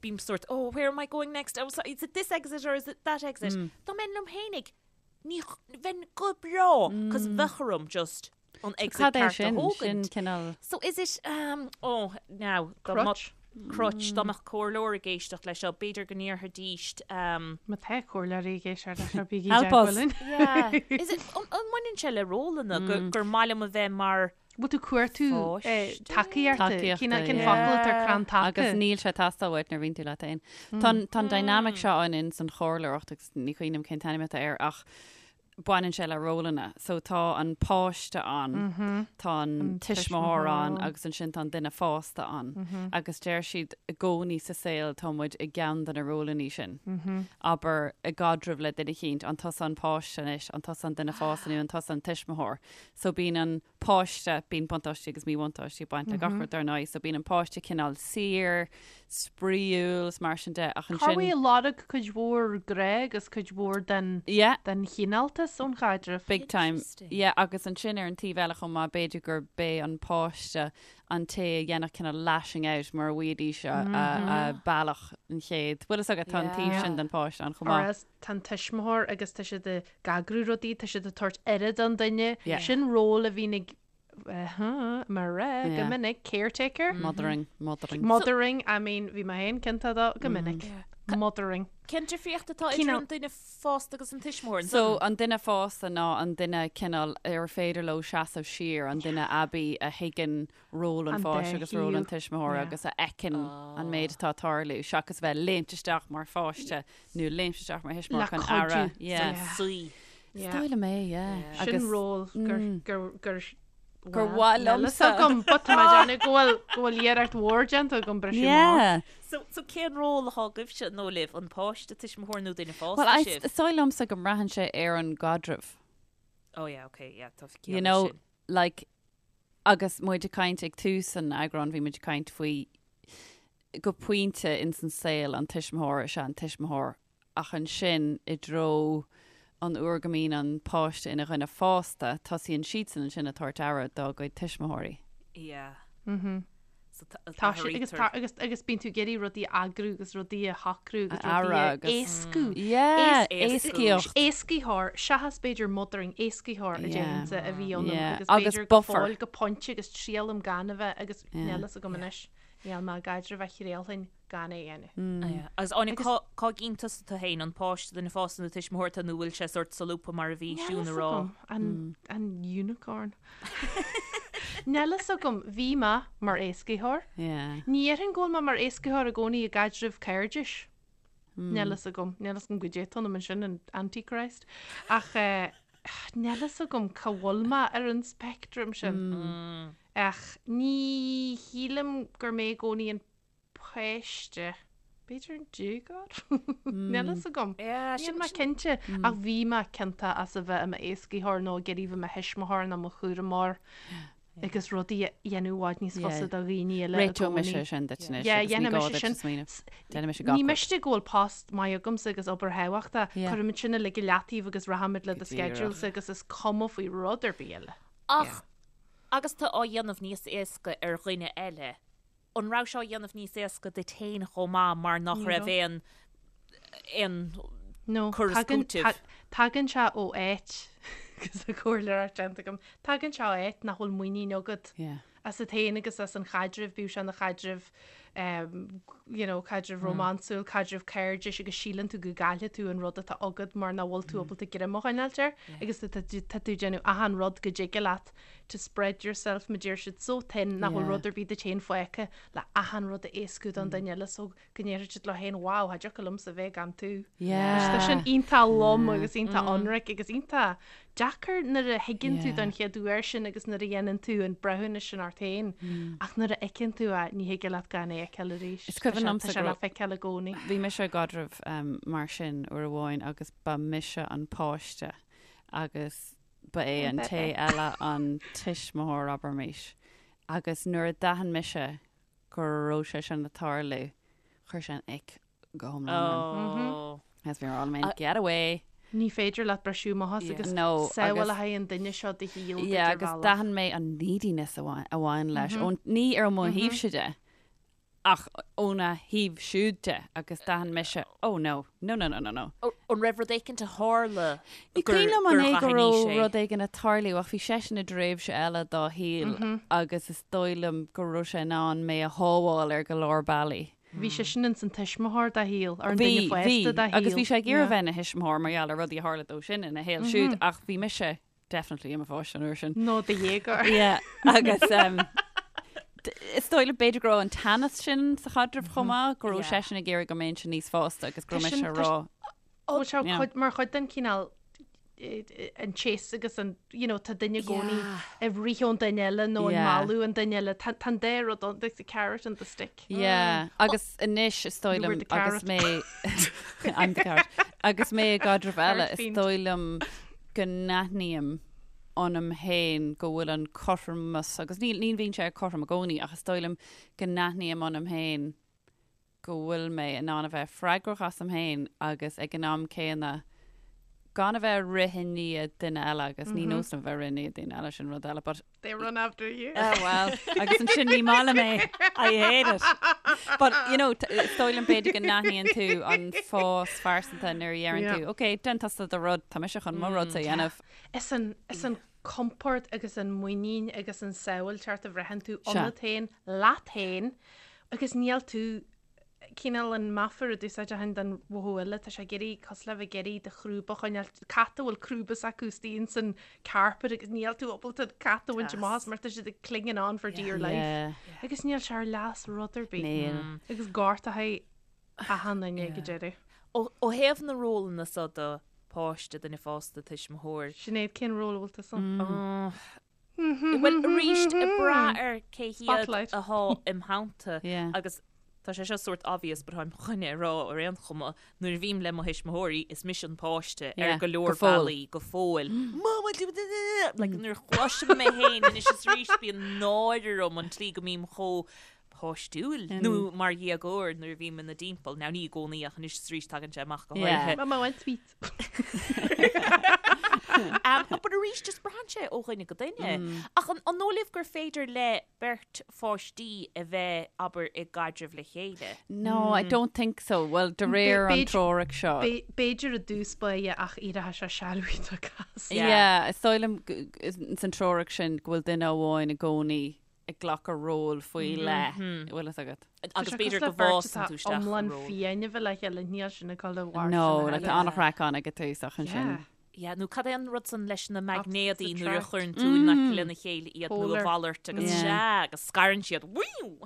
bím sórt oh where am I going next, oh sorry, is it this exit or is it that exit? Dá mbeinn liom fhéinig, ní, bheinn go breá, cos bheadh orm just an exit Cad é ceart a sin? Sin thógaint. cineál... So is it, um, oh, now, dá mba- Crutch. Crutch, dá mbeadh comhairleoir ag éisteacht leis seo, b'fhéidir go ndéarfaidís, um, Má tá comhairleoirí ag éisteacht leis seo, bígí i Help us. dteagmháil linn. Yeah. Is it, an, an mbaineann sé le rólanna go, gur maith liom a bheith mar Bhfuil tú cuartú Pháiste? tacaíochta? Tacaíochta, Cén cén yeah. focal atá ar crann taca? Agus níl sé ag teastáil uait nuair a bhíonn tú leat féin. Tá an- tá an dynamic seo ann in san chomhairleoireacht agus ní cuimhin liom cén t-ainm atá air ach. baineann sé le rólanna. So tá an páiste ann, tá an tuismitheoir ann agus ansin tá an duine fásta ann. Agus deir siad i gcónaí sa saol tá muid i gceann de na rólanna sin. Abair i gcaidreamh le duine eicínt, an tusa an páiste anois, an tusa an duine fásta nó an tusa an tuismitheoir. So bíonn an páiste, bíonn buntáistí agus míbhuntáistí ag baint le gach rud dar ndóigh, so bíonn an páiste cineál saor, spraíúil is mar sin de ach ansin. Cá bhfuil ag lorg cuid mhór grá agus cuid mhór den Yeah. den chineáltas ón chaidreamh. Big time. Yeah, agus ansin ar an taobh eile chomh maith, b'fhéidir gur b'é an páiste an té a dhéanfadh cineál lashing out mura bhfaighidís a bealach an chéad. Bhfuil fhios agat, tá an taobh sin den pháiste ann chomh Or maith. else tá an tuismitheoir agus tá siad ag eagrú rudaí, tá siad ag tabhairt aire don duine. Yeah. Sin ról a bhíonn ag mar go Yeah. minic, caretaker. Mothering, mothering. Mothering, I mean, bhí mé féin ciontach dó go minic. Mothering. Cén difríocht atá idir Cineál- an duine fásta agus an tuismitheoir? So an duine fásta ná an duine cineál ar féidir leo seasamh siar, an duine aibí a thuigeann ról an An pháiste agus ról an dá tuismitheora thaobh. agus a fheiceann an méid atá ag tarlú, seachas bheith léimt isteach mar pháiste nó léimt isteach mar thuismitheoir Le chun cuidiú. aire. Yeah. Yeah. Suí. Is dóigh liom é, yeah. Sin ról gur gur gur Gur mhaith liomsa. agam, but tá mé ag déanamh go bhfuil go bhfuil iarracht mhór déanta agam briseadh amach. Yeah. So, so cén ról atá agaibhse nó libh, an páiste, tuismitheoir nó duine fásta Well, I, sibh? is dóigh liomsa go mbraitheann sé ar an gcaidreamh. Oh yeah, okay, yeah, tá You ciall know, leis sin. like, agus muid ag caint ag tús an eagráin, bhí muid ag caint faoi go pointe ins an saol an tuismitheoir is ea an tuismitheoir ach ansin i dtreo an uair go mbíonn an páiste ina dhuine fásta, tosaíonn siadsan ansin ag tabhairt aire dá gcuid tuismitheoirí. Yeah. Mhm. So Tá sé agus tá agus agus bíonn tú ag iarraidh rudaí a eagrú agus rudaí a shocrú agus A rudaí a agus- éascú. Yeah, Éascú. éascaíocht. Éascaitheoir, seachas b'fhéidir mothering, éascaitheoir a Yeah. déarfainnse a bhí ionam Yeah. agus Agus b'fhéidir go buffer. fóill go pointe agus triailim gan a bheith agus Yeah. níl fhios agam anois, níl mé i gcaidreamh a thriailfinn gan é a dhéanamh. Agus Áine, cá cá gcíonn tusa tú féin, an páiste duine fásta nó tuismitheoir tú nó bhfuil sé sórt solúbtha mar a bhí Níl Siún fhios a rá? agam, an, an unicorn. Níl fhios agam, bhí mé mar éascaitheoir. Yeah. Ní dhéarfainn go bhfuil mé mar éascaitheoir i gcónaí i gcaidreamh cairdis. Níl fhios agam, níl fhios agam goidé atá ionam ansin, an Antichrist. Ach eh, níl fhios agam cá bhfuil mé ar an speictream sin. Ach ní shílim gur mé i gcónaí an páiste. B'fhéidir an déagóir? Níl fhios agam. Níl mé cinnte. Ach bhí mé ciontach as a bheith i m'éascaitheoir nó ag iarraidh bheith i mo thuismitheoir nó mo chúramóir agus rudaí a dhéanamh i bhfad níos fusa do dhaoine eile i Réiteoidh gcónaí. mise sin duit anois Yeah, agus ní dhéanfaidh gá mise duit sin. smaoineamh. Déanfaidh mise gach Ní rud. miste go bhfuil post maith agamsa agus obair thábhachtach. Yeah. Cuirfimid sin uilig i leataobh agus rachaimid le do Go díreach. schedules agus is cuma faoi rud ar bith eile. Ach agus tú á dhéanamh níos éasca ar dhuine eile, An raibh sé á dhéanamh níos éasca duit féin chomh maith mar nach raibh aon aon No, cur is tagann, cúiteamh? tagann sé ó áit, agus an chomhairleoireacht déanta agam, tagann sé ó áit nach bhfuil muinín agat Yeah. asat féin agus as an chaidreamh, bíodh sé ina chaidreamh, um, you know, caidreamh rómánsúil, caidreamh cairdis agus síleann tú go gcaillfidh tú an rud atá agat mar nach bhfuil tú ábalta greim a choinneáilt air agus tá tú tá tú ag déanamh achan rud go dtig leat to spread yourself, mar deir siad, so thin nach bhfuil Yeah. rud ar bith duit féin fágtha le achan rud a éascú don duine eile so go ndéarfaidh siad leo féin wow, cha dtiocfadh liomsa bheith gan tú. Yeah. Tá sin iontach lom agus iontach ionraic agus iontach deacair nuair a thuigeann tú Yeah. don chéad uair sin agus nuair a dhéanann tú an breithiúnas sin ort féin ach nuair a fheiceann tú é ní thig leat gan é a fheiceáil arís. Is cuimhin Tá sé- liomsa Tá sé go le raibh- feiceáil i gcónaí. Bhí mise i gcaidreamh um, mar sin uair amháin agus ba mise an páiste agus Ba é an té eile an tuismitheoir, abraimis. Agus nuair a d'aithin mise go raibh sé sin ag tarlú, chuir sé an ick go hiomlán orm. Oh. Agus bhí mé all man, get away. Ní féidir leat briseadh amach as agus No, samhail agus- a haghaidh an duine seo do shaol duit Yeah, ar agus bhealach. d'aithin mé an neediness a bhain, a bhain leis. Ón, ní ar mo thaobhse de, Ach óna thaobh siúd de, agus d'aithin mise, oh no, no, no, no, no, no. An raibh rud éicint a tharla Ní gur cuimhin liom an gur é go aithin raibh sé? rud éigin ag tarlú ach bhí seisean i dtréimhse eile dá shaol agus is dóigh liom go raibh sé in ann mé a shábháil ar go leor bealaí. Bhí seisean ins an tuismitheoir dá shaol, or an duine Bhí, fásta bhí, dá shaol. agus bhí sé ag iarraidh Yeah. bheith ina thuismitheoir mar gheall ar rudaí a tharla dó sin ina shaol siúd ach bhí mise definitely i mo pháiste an uair sin. Nó do dhéagóir. Yeah, agus um, is dóigh liom b'fhéidir go raibh an teannas sin sa chaidreamh chomh maith, go raibh Yeah. seisean ag iarraidh go mbeinnse níos fásta agus go Tá raibh sin- mise tá rá. Bhfuil sé Yeah. cuid- mar chuid den cineál. an chase agus an, you know, tá duine i gcónaí ag rith ón duine eile nó ag mealladh an duine eile. Tá an dá rud ann, there's the carrot and the stick. Yeah, agus anois is dóigh liom agus mé I'm the carrot. Agus mé i gcaidreamh eile is dóigh liom go n-aithním ionam féin go bhfuil an cothromas agus ní ní bhíonn sé cothrom i gcónaí ach is dóigh liom go n-aithním ionam féin go bhfuil mé in ann a bheith freagrach asam féin agus ag an am céanna gan a bheith ag rith i ndiaidh duine eile agus ní nós liom a bheith ag rith i ndiaidh duine eile sin rud eile but They run after you. Oh well, agus ansin ní maith liom é. I hate it. But, you know, is dóigh liom b'fhéidir go n-aithníonn tú an fás phearsanta nuair a dheireann tú, ok, déan tusa do rud, tá mise chun mo rudsa a dhéanamh. Is an, is an compord agus an muinín agus an sábháilteacht a bhraitheann tú ionat féin, leat féin, agus níl tú cineál an meafar a d'úsáidfinn don mhothú eile, tá sé ag iarraidh, cosúil le bheith ag iarraidh do chrúba a choinneáil, cat a bhfuil crúba s'acu istigh ins an carpet agus níl tú ábalta an cat a bhaint amach as mar tá siad ag clinging on for dear life. Agus níl sé ar leas rud ar bith. Níl. Agus gortaithe achan duine ag an deireadh. Ó thaobh na rólanna so de, páiste, duine fásta, tuismitheoir. Sinéad, cén ról a bhfuil tusa ann? Bhuel, arís, ag brath ar cé hiad athá im theannta agus tá sé seo sórt obvious but táim chun é a rá ar aon chuma, nuair a bhím le mo thuismitheoirí is mise an páiste ar go leor bealaí go fóill. Mama, like nuair a chloisim mé féin anois is arís bíonn náire orm an tslí go mbím chomh páistiúil nó mar dhéagóir nuair a bhím ina dtimpeall. Now ní i gcónaí ach anois is arís tagann sé amach go háirithe. Mama want sweet. Um, but arís just braitheann sé ó dhuine go duine. Ach an, an dóigh libh gur féidir le beirt pháistí a bheith, abair, i gcaidreamh le chéile? No, I don't think so. Well, de réir an treorach seo. B'fhéidir i dtús báire ach éireoidh sé sealbhaí tá cás. Yeah, is dóigh liom san treorach sin go bhfuil duine amháin i gcónaí ag glacadh ról faoi leith, an bhfuil fhios agat. Agus b'fhéidir go bhfásann tú isteach iomlán fiáin a bheith le chéile, níl sin ag dul i bhfad. No, like tá an-chraic ann ag an tús ach ansin. Yeah, nó cad é an rud san leis na maighnéadaí nuair a chuireann tú in aice lena chéile iad nó a mhalairt agus sea, agus scarann siad.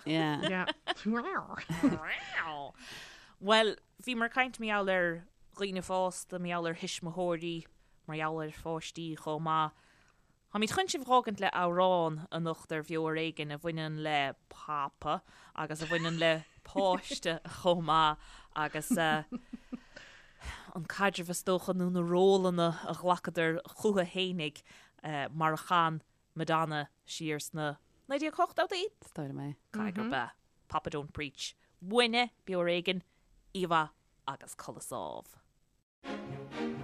Yeah. Bhuel, bhíomar ag caint mar gheall ar dhaoine fásta, mar gheall ar thuismitheoirí, mar gheall ar pháistí chomh maith. Táimid chun sibh a dh'fhágaint le amhrán anocht ar Bheo Ar Éigean a bhaineann le Papa agus a bhaineann le páiste chomh maith agus an caidreamh is dócha nó na rólanna a ghlacadar chucu fhéinig mar a chan Madonna siar sna 1980idí? Is dóigh liom é. Caithfidh gurb ea. Papa Don't Preach. Uainne, Beo Ar Éigean, Oíche mhaith agus codladh sámh.